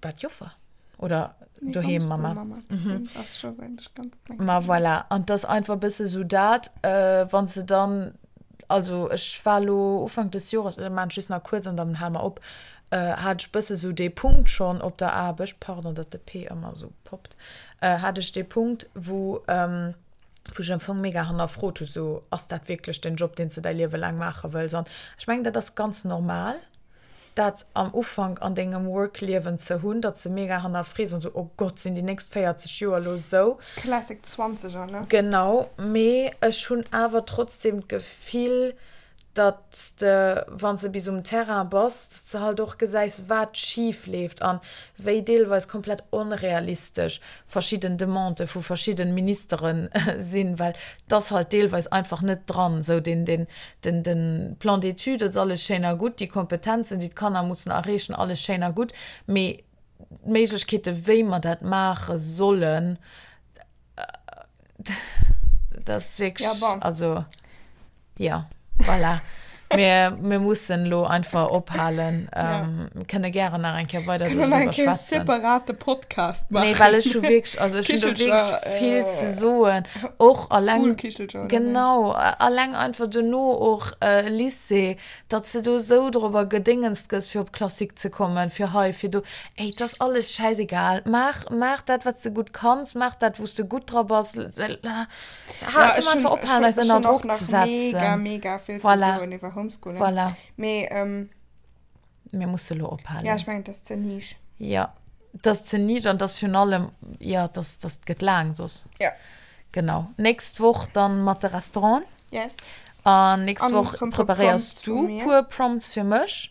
Wat Joffer? Oder nee, doheem Mama? Mama mhm. ass schon eigentlich ganz klein. Ma voilà. An das einfach bësse so dat, äh, wann se dann, also ech war lo Ufank des Jores, oder man just nach kurz an dann hal mer op, äh, hat ech bësse so dee Punkt schon op der Aarbecht, pardon, dat de P ëmmer so poppt, äh, hat ech dee Punkt, wou, ähm, wou ech am Fong mega hannerfrot hu, so ass dat wierklech den Job, deen s de däi Liewe laang maache wëlls? An ech mengen, dat ass ganz normal. dat am Ufank an dengem Work-Liewen ze hunn, datt s de mega hannerfrees an esou, oh Gott, sinn déi nächst 40 Joer elo esou? Classic Zwanzeger, ne? Genau, mee ech hunn awer trotzdem d'Gefill, Datt s de, wann s de bis um Terrain bass, datt s de halt och gesäis, wat schif leeft an wéi deelweis komplett onrealistesch verschidden Demandë vu verschidden Ministere sinn, well 't ass halt deelweis einfach net dran. Esou den, den, den, de Plan d'études ass alles schéin a gutt, déi Kompetenzen, déi d'Kanner mussen erreechen, alles schéin a gutt, mee d'Méiglechkeete wéi mer dat maache sollen, Dat ass wierklech, Ja, bon. also, ja, voilà. Mir, mir mussen elo einfach ophalen. Ja. Ähm, mir kënne gären nach eng Kéier weider Kënne nach doriwwer eng Kéier schwätzen. separate Podcast maachen. Nee, well ech hu wierklech, also ech hunn do Kichelcher, wierklech vill ze äh, soen. Och alleng, Schoolkichelcher oder wéi? genau, alleng einfach duerno och äh, Lycée, Datt s de do esou dorobber gedéngenst gëss, fir op Classique ze kommen, fir hei, fir do. Ey, 't ass alles schäisegal. Maach, maach dat, wat s de gutt kanns, maach dat, wou s de gutt dra bass. Ha, Ja, kënne ech mer hunn, einfach ech ophalen, hunn, eis ech ënner hunn och Drock nach ze mega, setzen. mega vill ze Voilà. soen iwwer Homeschooling. Voilà. Mee, ähm. Mir musse lo Ja, ophalen. ech mengen, 't ass ze niche. Ja, 't ass ze niche an 't ass virun allem, ja, 't ass, 't gëtt laang soss. Ja. Genau. Nächst Woch dann mat de Restauranten. Yes. An nächst An Woch rëm puer preparéiers Prompts du vu mir. puer Prompts fir mech.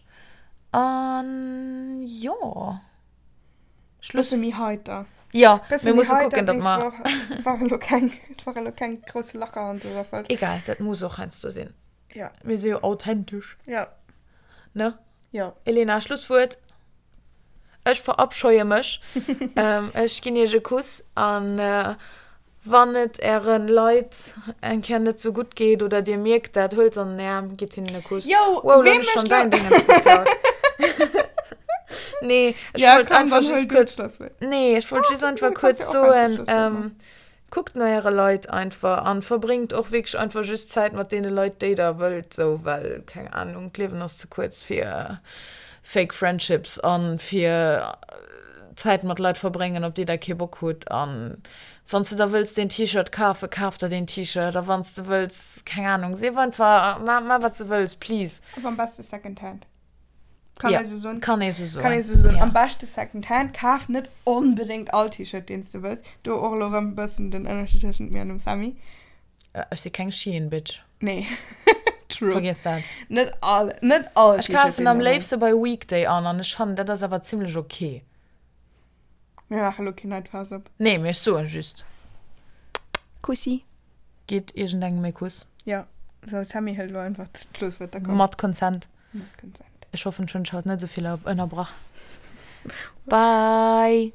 An jo. Schluss. Bësse méi heiter. Ja, Bësse mir méi musse heiter kucken, datt d'nächst mer. Woch. Et ware lo keng, et ware lo keng grousse Lacher an dëser Folg. Egal, dat muss och heiansdo sinn. Ja. Mir si jo authentesch. Ja. Ne? Jo. Elena, Schlusswuert. Ech verabscheue mech. Ech ginn iech e Kuss an wann et äre Leit eng Kéier net sou gutt geet oder dir mierkt dat, huelt se an den Aarm, gitt hinnen e Kuss. Yo, Wow, lo wee hunn ech mécht schonn lo? däin Déngens geklaut. Nee, ech Ja, wollt komm, einfach dann huel just du kuerz, d'Schlusswuert. nee, ech wollt Ah, just du einfach kanns kuerz jo och heiansdo soen, d'Schlusswuert maachen. Kuckt no äre Leit einfach an verbréngt och wierklech einfach just Zäit mat deene Leit déi der wëllt sou, well keng Ahnung, d'Liewen ass ze kuerz fir fake friendships an fir Zäit mat Leit verbréngen op déi der kee Bock hutt. An wann s de der wëlls deen T-Shirt kafen, kaf der deen T-Shirt a wann s de wëlls, keng Ahnung, sief einfach, ma wat s de wëlls, please. Awer am beste Second Hand. Kann Ja, ee sou soen? kann ee sou soen. Kann ee sou soen. Ja. Am beschte Second Hand. Kaf net onbedéngt all T-Shirt, deen s de wëlls. Do och elo erëm e bëssen den Ënnerscheed tëschent mir an dem Sammy. Ech si keng Shein-Bitch. Nee. True. Vergiess dat. Net all, net all Ech T-Shirt, kafen deen am de wëlls. léifste bei Weekday an an ech fannen, dat ass awer zimlech ok. Mir maache elo keen neit Faass op. Nee, mee ech soen just. Kussi. Gitt iergendengem e Kuss. Jo. Sou, Sammy hëlt elo einfach d'Schlusswuert. Da komm. Mat Consent. Mat Consent. Ech hoffen, ech hunn dech haut net esou vill ënnerbrach. Bye!